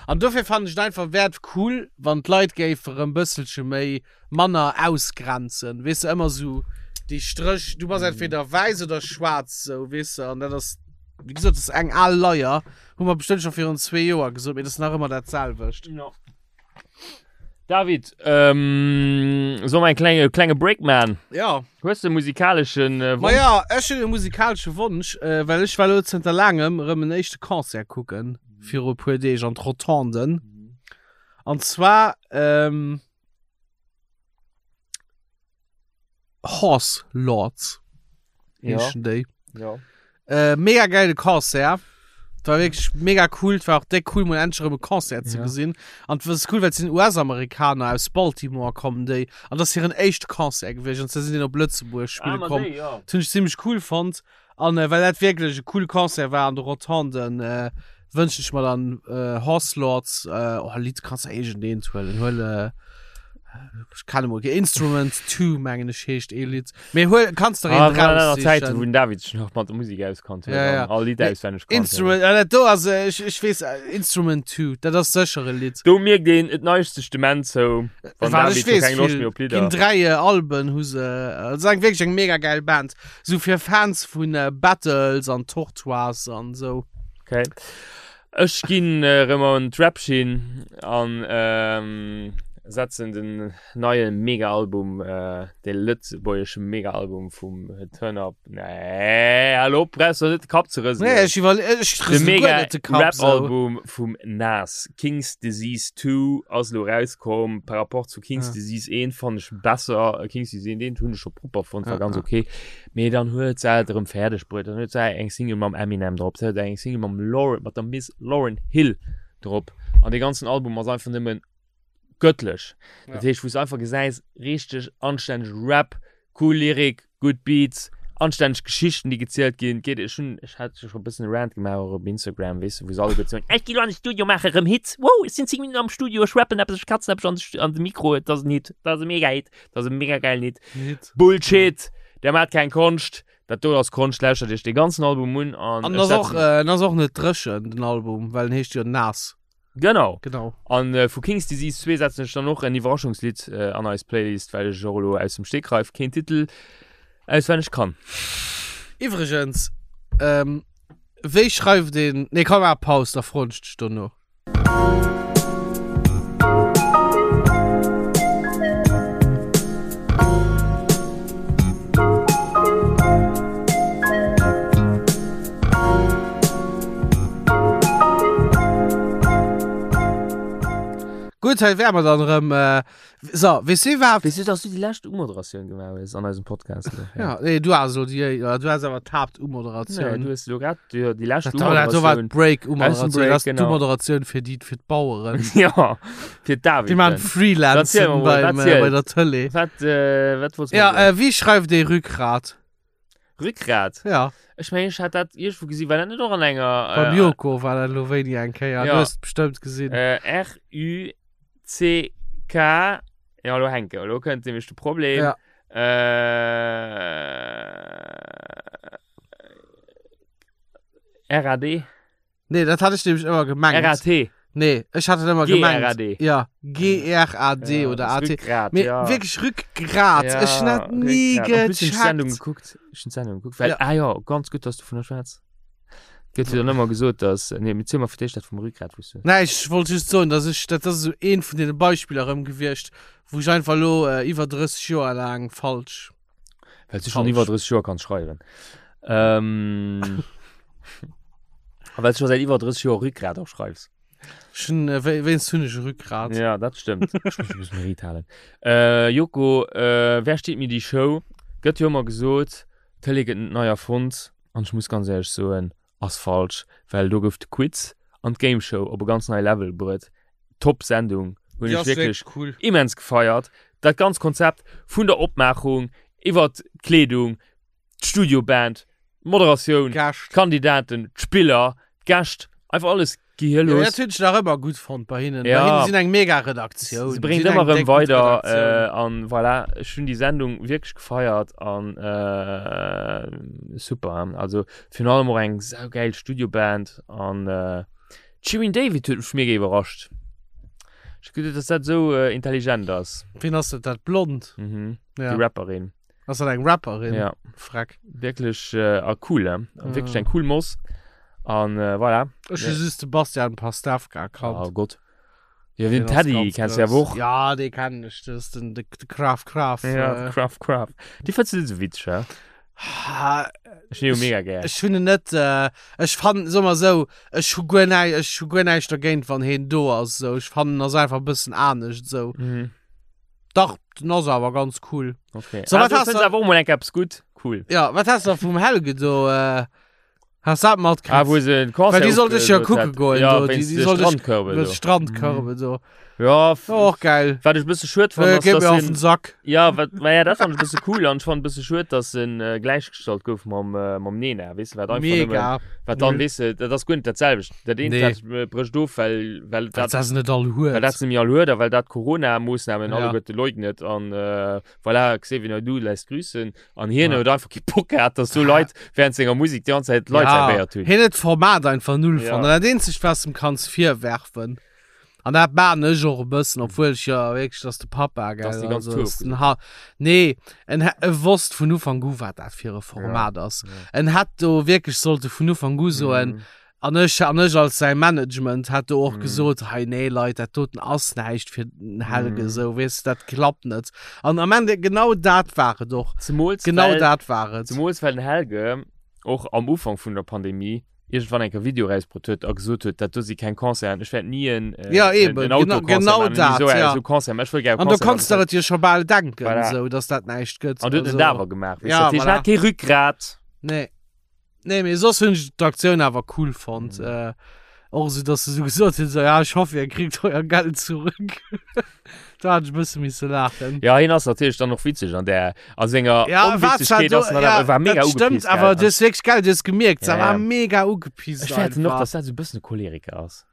An dofir fannen ech et einfach, wär et cool, wann d'Leit géife rëm bësselche méi manner ausgrenzen, weess de, ëmmer sou. Déi Stréch, du bass entweder wäiss oder schwaarz, sou, weess de, an dat ass, wéi gesot, dat ass eng al Leier, hu mer bestëmmt scho virun zwee Joer gesot, mee dat ass nach ëmmer dat selwecht. Ja. David, ähm, soll mer en klenge, klenge Break man? Ja. Hues de e musikaleschen äh, Ma Wonsch? ja, ech hunn e musikalesche Wonsch, äh, well ech war lo zënter laangem erëm en éischte Concert kucken, viru e puer Deeg an d'Rotonden. An zwar, ähm, Horse Lords heeschen déi. Ja. Äh, mega geile Concert. War wirklich mega cool. War auch déck cool, mal endlich erëm e Concert ze Ja. gesinn. An was cool, well sinn US-Amerikaner aus Baltimore kommen déi. An das hiren éischte Concert gewiescht. An se sinn op Lëtzebuerg spille Ah, ma komm. déi, ja. Dat hunn ech zimmlech cool fonnt. An äh, well dat wierklech e coole Concert war an de Rotonden, äh, wënschen ech mer dann äh, Horse Lords, äh, oh, Lidd kannst du iergendeent huelen. Huel, äh, ech kenne mol kee, Instrument 2 mengen ech heescht ee Lidd. Mee huel, kannst der Ah, een war dat nach Zäiten, raussichen. wou den David sech nach mat der Musek auskannt huet Ja, ja. an all Lidd Nee, auswenneg kannt huet. Instrument, ja, dat do ass, äh, ech, ech weess, äh, Instrument 2, dat ass sécher e Lidd. Do mierkt een, et neigt sech d'Dement zou, wann Wat David ech scho weess, keng Loscht vill méi op Lidder. ginn dräi äh, Alben hu se, äh, ass eng wierklech eng mega geil Band. Sou fir Fans vun äh, Battles an Tortoise an sou. Okay. Ech ginn erëm an d'Rap-Schinn an ähm, setzen den neie Mega-Album, äh, de lëtzebuergesche Mega-Album vum Turn Up. Nee, hallo, brauchst du net de Kapp ze rëselen. Nee, ech iwwer ech De rësele guer mega net de Kapp sou. Rap-Album vum Nas, King's Disease 2, ass elo rauskomm. Par rapport zu King's Ja. Disease 1 fannen ech besser. King's Disease 1, deen hunn ech scho propper fonnt, war Ja, ganz ja. okay. Mee dann huet se et erëm fäerdeg bruet. Dann huet se eng Single mam Eminem drop, se huet eng Single mam Lauryn, mat der Miss Lauryn Hill drop. An dee ganzen Album ass einfach nëmmen göttlech. Ja. Dat heescht, wou s du einfach gesäis, richteg anstänneg Rap, cool Lyrik, gutt Beats, anstänneg Geschichten, déi gezielt ginn. Geet, ech hunn, ech hat scho e bëssen e Rant gemaach och op Instagram, weess de, wou se alleguer soen, ech gi lo an de Studio, maache rëm Hits, wow, ech sinn 10 Minutten am Studio, ech rappen eppes, ech katzen eppes an de, an de Mikro, et ass en Hit, dat ass e Mega-Hit, dat ass e mega geilen Hit. Hit. Bullshit! Der maat keng Konscht, dat do ass Konscht, lauschtert iech dee ganzen Album un an An ech ass och, setzen. äh, en ass och net dréchen, den Album, well en heescht jo Nas. Genau. Genau. An äh, vu King's Disease 2 setzen ech dann och en Iwwerraschungslidd äh, an eis Playlist, well ech och elo aus dem Stegreif keen Titel auswenneg kann. Iwwregens, ähm, wéi schreift een, nee komm maach Paus, da froen ech dech dono. Gutt, hei wäre mer dann erëm. Äh, so, weess du iwwerhaapt. Weess du, dass du déi lescht Umoderatioun gemaach hues an eisem Podcast? Ja, nee, du has elo déi, du has awer d'Haaptumoderatioun. Nee, du hues elo grad déi, déi lescht Dat war, dat war Umoderatioun. d'Break-Umoderatioun. Break, Dat ass genau. d'Umoderatioun fir déi, fir d'Baueren. Ja, fir d'David. Déi maachen Erzähl Freelancen mer mol, beim, wat äh, zielt? bei der Tëlee. Wat, äh, wat wolltest du Ja, mer soen? äh, wéi schreift ee Rückgrat? Rückgrat? Ja, Ech mengen, ech hat dat iergendwou gesinn. War dat net och an enger. beim Äh, Joko war dat elo wéini eng Kéier. Ja. Du hues et bestëmmt gesinn. äh, R-U-C-K. Ja, elo hänke. Elo kënnt nämlech de Problem. Ja. Äh, R-A-D? Nee, dat hat ech nämlech ëmmer gemengt. R-A-T. Nee, ech hat et ëmmer gemengt. G-R-A-D. Ja, G-R-A-D Ja, oder das A-T. Rückgrat, Mee ja. wierklech Rückgrat. Ja, Ech hunn dat ni Rückgrat. En plus hunn ech d'Sendung gecheckt. gekuckt. Ech hunn d'Sendung gekuckt, well, Ja. ah ja, ganz gutt, dass du vun der schwätz. Gëtt jo dann ëmmer gesot, dass, nee, mee ziel mer fir d'éischt dat vum Rückgrat, wou s du. Nee, ech wollt just soen, dass ech, dat ass esou eent vun deene Beispiller erëm gewiescht, wou ech einfach elo iwwer 30 Joer laang falsch. Well du schon iwwer 30 Joer kanns schreiwen. Ähm, a well du schon seit iwwer 30 Joer Rückgrat och schreifs. Schon, äh, wéinst hunn ech e Rückgrat. Ja, dat stëmmt. Ech muss e bëssen Riit halen. Äh, Joko, äh, wer steet mir die Show? Gëtt jo ëmmer gesot, d'Tëlee gëtt net nei erfonnt. An ech muss ganz éierlech soen, ass falsch, well do gouf de Quiz an d'Game Show op e ganz nei Level bruet. Top Sendung, hunn ech wierklech cool. immens gefeiert. Dat ganz Konzept vun der Opmaachung iwwert d'Kleedung, d'Studioband, d'Moderatioun, Gäscht. d'Kandidaten, d'Spiller, d'Gäscht, einfach alles Ja, gehirlos. dat hunn ech nach ëmmer gutt fonnt bei hinnen. Ja. Bei hinnen sinn eng mega Redaktioun. Se bréngt Sinn ëmmer eng erëm déck gutt weider Redaktioun. äh, an voilà, ech hunn déi Sendung wierklech gefeiert an äh, super. Also virun allem och eng saugeil Studioband an äh, d'Shirin David huet mech mega iwwerrascht. Ech geduet, dass dat esou äh, intelligent ass. Wien ass dat? Dat Blond? Mhm. Ja. Déi Rapperin. Ass dat eng Rapperin? Ja. Freck. Wierklech äh, a cool, he? Ja. Wierklech eng cool Moss. An äh, voilà. Ech hu just de Bastian Pastewka kannt. Oh Gott. Ja, den Den ass Teddy ganz kennst du ja grouss. och. Ja, dee kennen ech. Das ist den, de, de Graf Graf. Ja, äh, Graf Graf. Die fënns du net so witzeg, hä? Ha, Ech hun jo mega gär. Ech hunn en net, äh, ech fannen, soe mer esou, ech hu guer näi, ech hu guer näischt dergéint, wann heen do ass, esou. Ech fannen, en ass einfach e bëssen anescht, esou. Mhm. Dach, den ass awer ganz cool. Okay. So, ah, wat du hast fënns du- awer och mol eng eppes gutt. Cool. Ja, wat has du vum Helge do, äh, has dat matkritt? Ah, wou se den Concert Well déi sollt ech jo ofgesot kucke hat. goen, Ja, do, déi- wéinst déi de sollt ech- Strandkörbe Mit do. Strandkörbe do. Ja, f- Oh, och geil. wat ech e bësse schued fand, Äh, ass, geet dass mir auf en den Sack. Ja, wat, ma ja, dat fand ech e bësse cool an ech fand e bësse schued, dass en äh, gläichgestallt gouf mam, äh, mam Nena, weess de, wat einfach nëmmen, Mega. wat dann, Null. weess de, dat ass guer net dat selwecht. Dat eent, Nee. dat äh, brécht of, well, well Well dat, dat se net all well dat huet. se nämlich all huet a well dat Corona-Moossnamen Ja. alleguerte leugnet an äh, voilà, Xavier Naidoo lässt grüßen an hien Ja. huet einfach kee Bock gehat, dass do Leit während senger Musik déi ganz Zäit Leit servéiert hunn. Hien huet d'Format einfach null Ja. fonnt. An dat eenzegt, was du em kanns virwerfen, an dat maan ech och e bëssen, obwuel ech jo wierklech, dass de Papa, gell, Dass déi ganz also, Tour dass den Ha nee, en hä- e wosst vun Ufank u, wat dat fir e Format ass. En hätt do wierklech sollte vun Ufank u soen, Mhm. An ech, an ech als säi Management hätt do och Mm. gesot, hei nee Leit, dat doten ass näischt fir den Helge, Mm. esou, weess de, dat klappt net. An am Ende, genau dat war et och. Zemools Genau well, dat war et. zemools well den Helge och am Ufank vun der Pandemie iergendwann eng Kéier Video erausbrutt huet a gesot huet, dat do si keng Concerten, ech wäert ni en, äh, Ja, en, eben, en genau, Autoconcert genau maachen, ni dat, esou, ja. esou Concert, mä ech wëll gär e An do Concert kanns de maachen. et jo scho bal denken, Voilà. esou, dass dat näischt gëtt. An du huet en Also, dat awer gemaach, weess Ja, de, dat heescht, en voilà. hat kee Rückgrat. Nee. Nee, mee soss hunn ech d'Aktioun awer cool fonnt. Mhm. Äh, och esou, dass se esou gesot hunn, so, ja, ech hoffe, ihr kriegt euer Geld zurück. da hat ech e bësse misse laachen. Ja, hien ass natierlech dann och witzeg an der, a senger Ja, war zwar Onwitzegkeet do, ass en dann ja, awer, war mega dat stëmmt, ugepisst, gell? awer du hues wierklech, gell, du hues gemierkt, se Ja, war ja. mega ugepisst Ech fäerten och, einfach. dass dat esou e bëssen e Choleriker ass.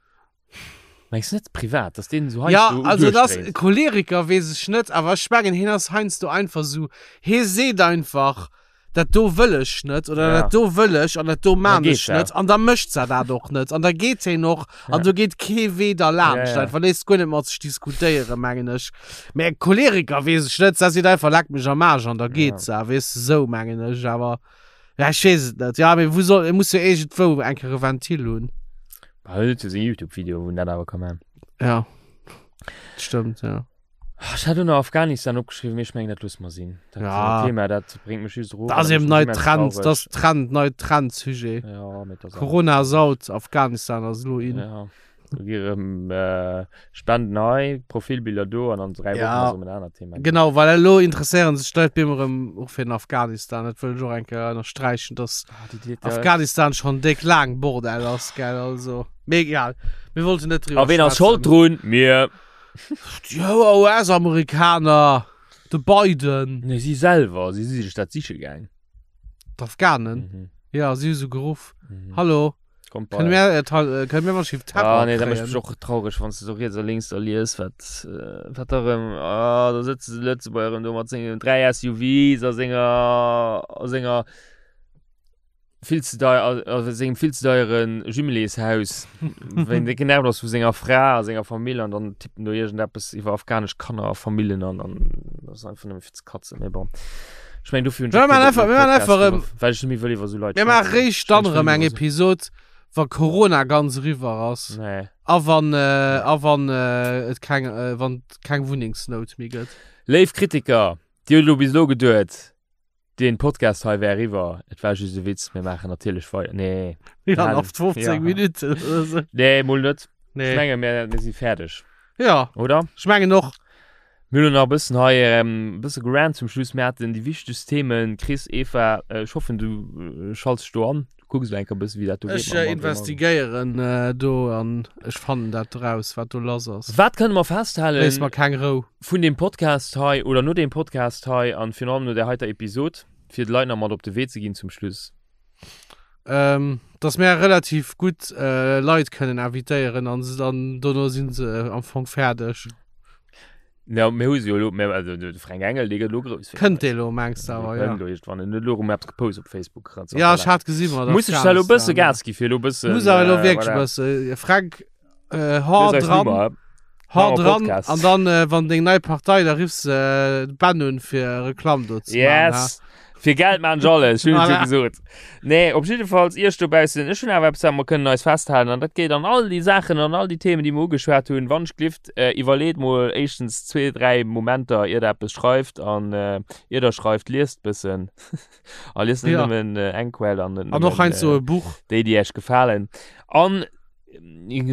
Mengs du net privat, dass deen esou Ja, heiansdo also das duerchdréit? Choleriker weess ech net, awer ech mengen hien ass heiansdo einfach esou, hie seet einfach, dat do wëll ech net oder Ja. dat do wëll ech an dat do Dann maan geet ech dat. net an da mécht se dat och net an da geet hien och an Ja. do geet kee Wee derlaanscht Ja, ja. einfach, léisst guer net mat sech diskutéieren, mengen ech. Mä Choleriker weess ech net, se seet einfach leck mech am Aarsch an da geet Ja. se, weess de, esou mengen ech, awer ja ech weess et net. Ja, mee wou soll, e muss jo iergendwou eng Kéier e Ventil hunn. Bah, huet jo seng Youtube-Videoen, wou en dat awer ka man. Ja, stëmmt, ja. Ah, Ech hat och nach Afghanistan opgeschriwwen, mee ech mengen, dat loosse mer sinn. Dat Ja. Thema, dat bréngt mech just erof. Dat ass an dat eben mécht nei mech immens Trend, traureg. dat ass Trend, nei Trendsujet. Ja, mee dat ass Corona ass out, Afghanistan ass elo in. Ja. Do gi erëm Spenden hei, Profilbiller do an an 3 Wochen Ja. ass erëm en anert Thema. Genau, well elo interesséieren sech d'Leit bem erëm och fir den Afghanistan. Dat wëll ech och eng Kéier ënnersträichen, dass Ah, déi, déi, déi, Afghanistan schonn déck laang Bordell ass, gell, also. Mee egal, mir wollten net driwwer A ween ass schold drun? Mir. Déi US-Amerikaner, de Biden. Nee, si selwer, si si sech dat siche gaang. D'Afghanen? Mhm. Ja, si hu se geruff. Mhm. Hallo, Kommt bei kënne mir, äh, Tal- äh, kënne mir mal schief Terror Ah, nee, dat mécht kréien? mech och traureg, wann s de sou riets a lénks da lies, wat, äh, wat da rëm, ah, da sëtzt de Lëtzebuerger rëm do mat sengen 3 SUVs a senger, a senger vill ze deier, a sengem vill ze deiere Jumeléshaus, wéi en déck genervt ass vu senger Fra a senger Famill an dann tippt en do iergendeppes iwwer afghanesch Kanner a Famillen an an dat ass einfach nëmme fir ze katzen, mee bon. Ech mengen, dofir hunn ech Mir och kee maachen Bock einfach, méi mir op maachen einfach Podcast erëm, gemaach, well ech net méi wëll iwwer esou Leit mir maache schwätzen. réischt Ech dann mengen, ech erëm wëll eng iwwer esou. Episod, wa Corona ganz eriwwer ass Nee. a wann, äh, a wann äh, et keng, äh, wann et keng Wunnengsnout méi gëtt. Léif Kritiker, Dir hutt elo bis elo geduet, deen Podcast hei wär eriwwer. Et war just e Witz, mir maachen natierlech weider. Nee. Ja, Halen. nach 15 Ja. Minuten oder so. Nee, mol net. Ech Nee. menge mir, mir si fäerdeg, Ja, oder? ech mengen och. Mir hunn nach e bëssen hei e bësse gerant zum Schluss. Mir haten déi wichtegst Themen. Chris, Eva, ech hoffen, du schalts dech do an. Du kucks elo eng Kéier e bësse wéi dat do geet Ech mam André Mann. investigéieren do an ech fannen dat raus, wat do lass ass. Wat kënne mer festhalen Léiss mer keng Rou. vun deem Podcast hei oder no deem Podcast hei an virun allem no där heiter Episod, fir de Leit nach mat op de Wee ze ginn zum Schluss? Ähm, dass mär relativ gutt Leit kënnen invitéieren an se dann dono si se am Fong fäerdeg. Ja, mir hu se jo elo, mir, also de Fränk Engel, dee gëtt elo grouss fir Kënnt eis. dee lo, mengs de Dee awer, ja. kënnt elo iergendwann. En huet elo erëm eppes gepost op Facebook. Ja, ech hat gesi mat Muss ech da elo e bësse Afghanistan. Gas gi fir elo e bëssen. Muss awer elo äh, wierklech e voilà. bësse. Fränk, äh, Du hau hues eis dran, Nummer. Hau Machen wir dran Podcast. an dann äh, wann deng nei Partei da riffs äh, Ben un fir Reklamm do ze Yes. machen, Fir Geld maan ech alles, ech hunn et jo Voilà. gesot. Nee, op jiddefalls iech dobaussen, ech hunn awer eppes wat mer kënnen eis festhalen an dat geet an all déi Saachen an all déi Themen déi mer ugeschwat hunn. Wann ech glift, äh, iwwerleet mol éischtens zwee, dräi Momenter ier der eppes schreift an äh, ier der schreift, liest bëssen a liest net Ja. nëmmen äh, eng Quell an net An och nëmmen heiansdo äh, e Buch. déi déi iech gefalen. An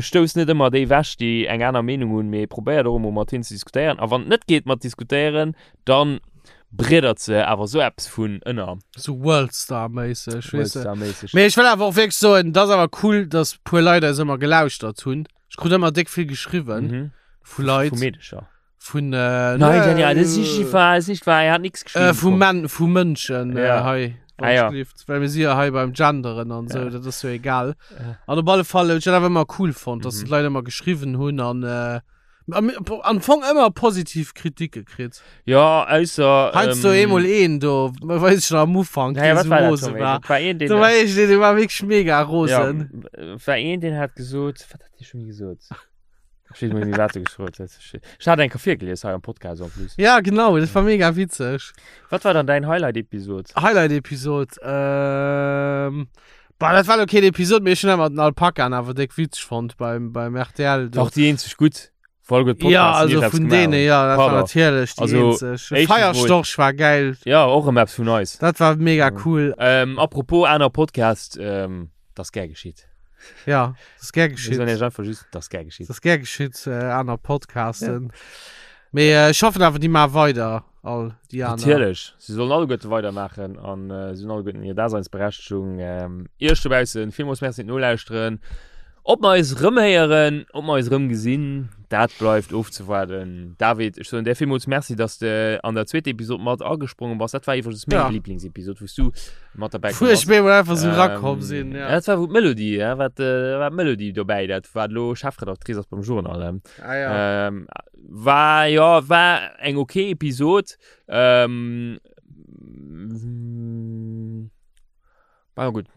Stouss net ëmmer déi ewech, déi eng aner Meenung hunn, mee probéiert och emol mat hinnen ze diskutéieren. A wann et net geet mat diskutéieren, dann breddert se awer esou eppes vun ënner. Sou Worldstar-méisseg, weess de. Worldstar-méisseg. Mee ech wëll awer och wierklech soen, et ass awer cool, dass puer Leit eis ëmmer gelauschtert hunn. Ech krut ëmmer déck vill geschriwwen vu Leit. Vu Meedecher. Vun, äh, Nein, Daniel, das ist nicht wahr, das ist nicht wahr, er hat nichts geschrieben. Äh, vu Men vu Mënschen äh, Ja. hei. Ah, ja. Well mir si ja hei beim Genderen an sou, Ja. dat ass jo egal. Ja. An op alle Fall, ech dat awer ëmmer cool fonnt, dass Mhm. d'Leit ëmmer geschriwwen hunn an äh, am, am Fong ëmmer positiv Kritike kritt. Ja, ausser. Heiansdo ähm, eemol een do, weess ech nach am Ufank, Naja, dee wat sou war dat rose schon? war. Dat war een, den. Do war ech, dee war wierklech mega rosen. Ja, war een, den hat gesot, wat hat dee schon gesot? Ech weess net méi, wat e geschriwwen huet. Ech hat eng Kéier virgelies hei am Podcast en plus. Ja, genau, dat war mega witzeg. Wat war dann däin Highlight-Episod? Highlight-Episod, ähm, bah, dat war lo keen Episod, mee ech hunn awer den Alpaka awer déck witzeg fonnt beim, beim RTL do. War och déi eenzeg gutt Folg huet Podcast Ja, also eppes vun gemaach deene, hunn. ja, dat war Pardon. natierlech déi Also, eenzeg. éischtens mol- Feierstorch war geil. Ja, och erëm eppes vun eis. Dat war mega cool. Ähm, apropos aner Podcast, ähm, dat ass gär geschitt. Ja, das ist gär Wir geschitt. sollen ja einfach just, das gär geschitt. Das ist gär geschitt, äh, aner Podcasten. Ja. Mee äh, ich hoffen awer, déi maache weider, all déi aner. Natierlech, si sollen alleguerte weidermaachen an äh, si hunn alleguerten hir Daseinsberechtegung. Ähm, Iech dobaussen villmools Merci fir d'Nolauschteren. Ob mer eis erëmhéieren, ob mer eis erëmgesinn, dat bleift ofzewaarden. David, ech soen där villmools Merci, dass de an der zweeter Episod mat agesprongen bass. Dat war iwwregens meng Ja. Lieblingsepisod, wou s du mat derbäi Wou ech komm bass. mir emol einfach sou rakomm sinn, Ja. ja. Dat war wou d'Melodie, ja, wat, äh, war d'Melodie dobäi, dat wat elo Chefredactrice ass beim Journal. Ähm, Ah, ja. ähm, war, ja, war eng okay Episod. Ähm, war gutt.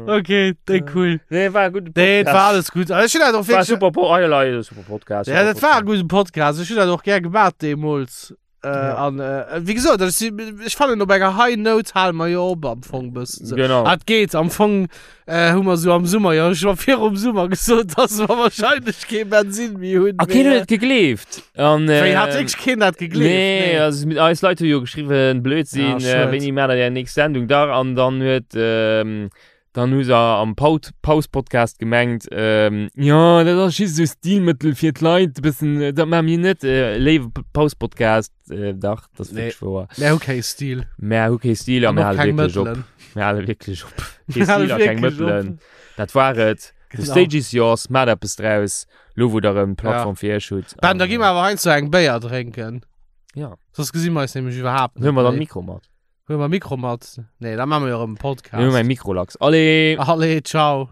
Okay, déi cool. Nee, war gutt. Nee, et war alles gut. Also, ich hun dat och War wirklich, super Po ah, ja, super Podcast. ja, dat war e guten Podcast. Ich hun dat och gär gemaat deemools. Äh, Ja. an, äh, wéi gesot, ech si, ech fannen op enger High Note hale mer jo op am Fong bëssen. So. Genau. Ah, et geet am Fong äh, hu mer sou am Summer jo scho virum Summer gesot, dass mer wahrscheinlech kee Bensin méi hunn. A keen huet et gegleeft. An, Wéi äh, hat wierklech keen dat gegleeft? Nee, also mit eis Leit hu jo geschriwwen, Blödsinn, Ja, äh, schued. wéini maacht der är nächst Sendung dach? An dann huet, ähm, Dann hu se am Paut Paus-Podcast gemengt, ähm, jo, dat ass just esou Stilmëttel fir d'Leit e bëssen, dat maache mir net. Äh, léiwe Paus-Podcast, äh, dach, dat ass Nee. wierklech wouer. Mär hu kee Stil. Mär hu kee Stil a An mir och hale keng wierklech op. Mëttelen. Mir hale wierklech op. Kee Mir hale Stil a keng wierklech op. Mëttelen. Dat war et. The Genau. stage is yours, maacht eppes draus, lo wou der erëm d'Plattform fir iech hutt. Ben, da gi mer awer heiansdo eng Béier drénken. Ja. Soss gesi mer eis nämlech iwwerhaapt Huele mer dann méi. Mikro mat. Huele mer Mikro mat? Nee, da maache mer jo erëm en Podcast. Mir hu mäi Mikrolachs. Allez! Allez, ciao.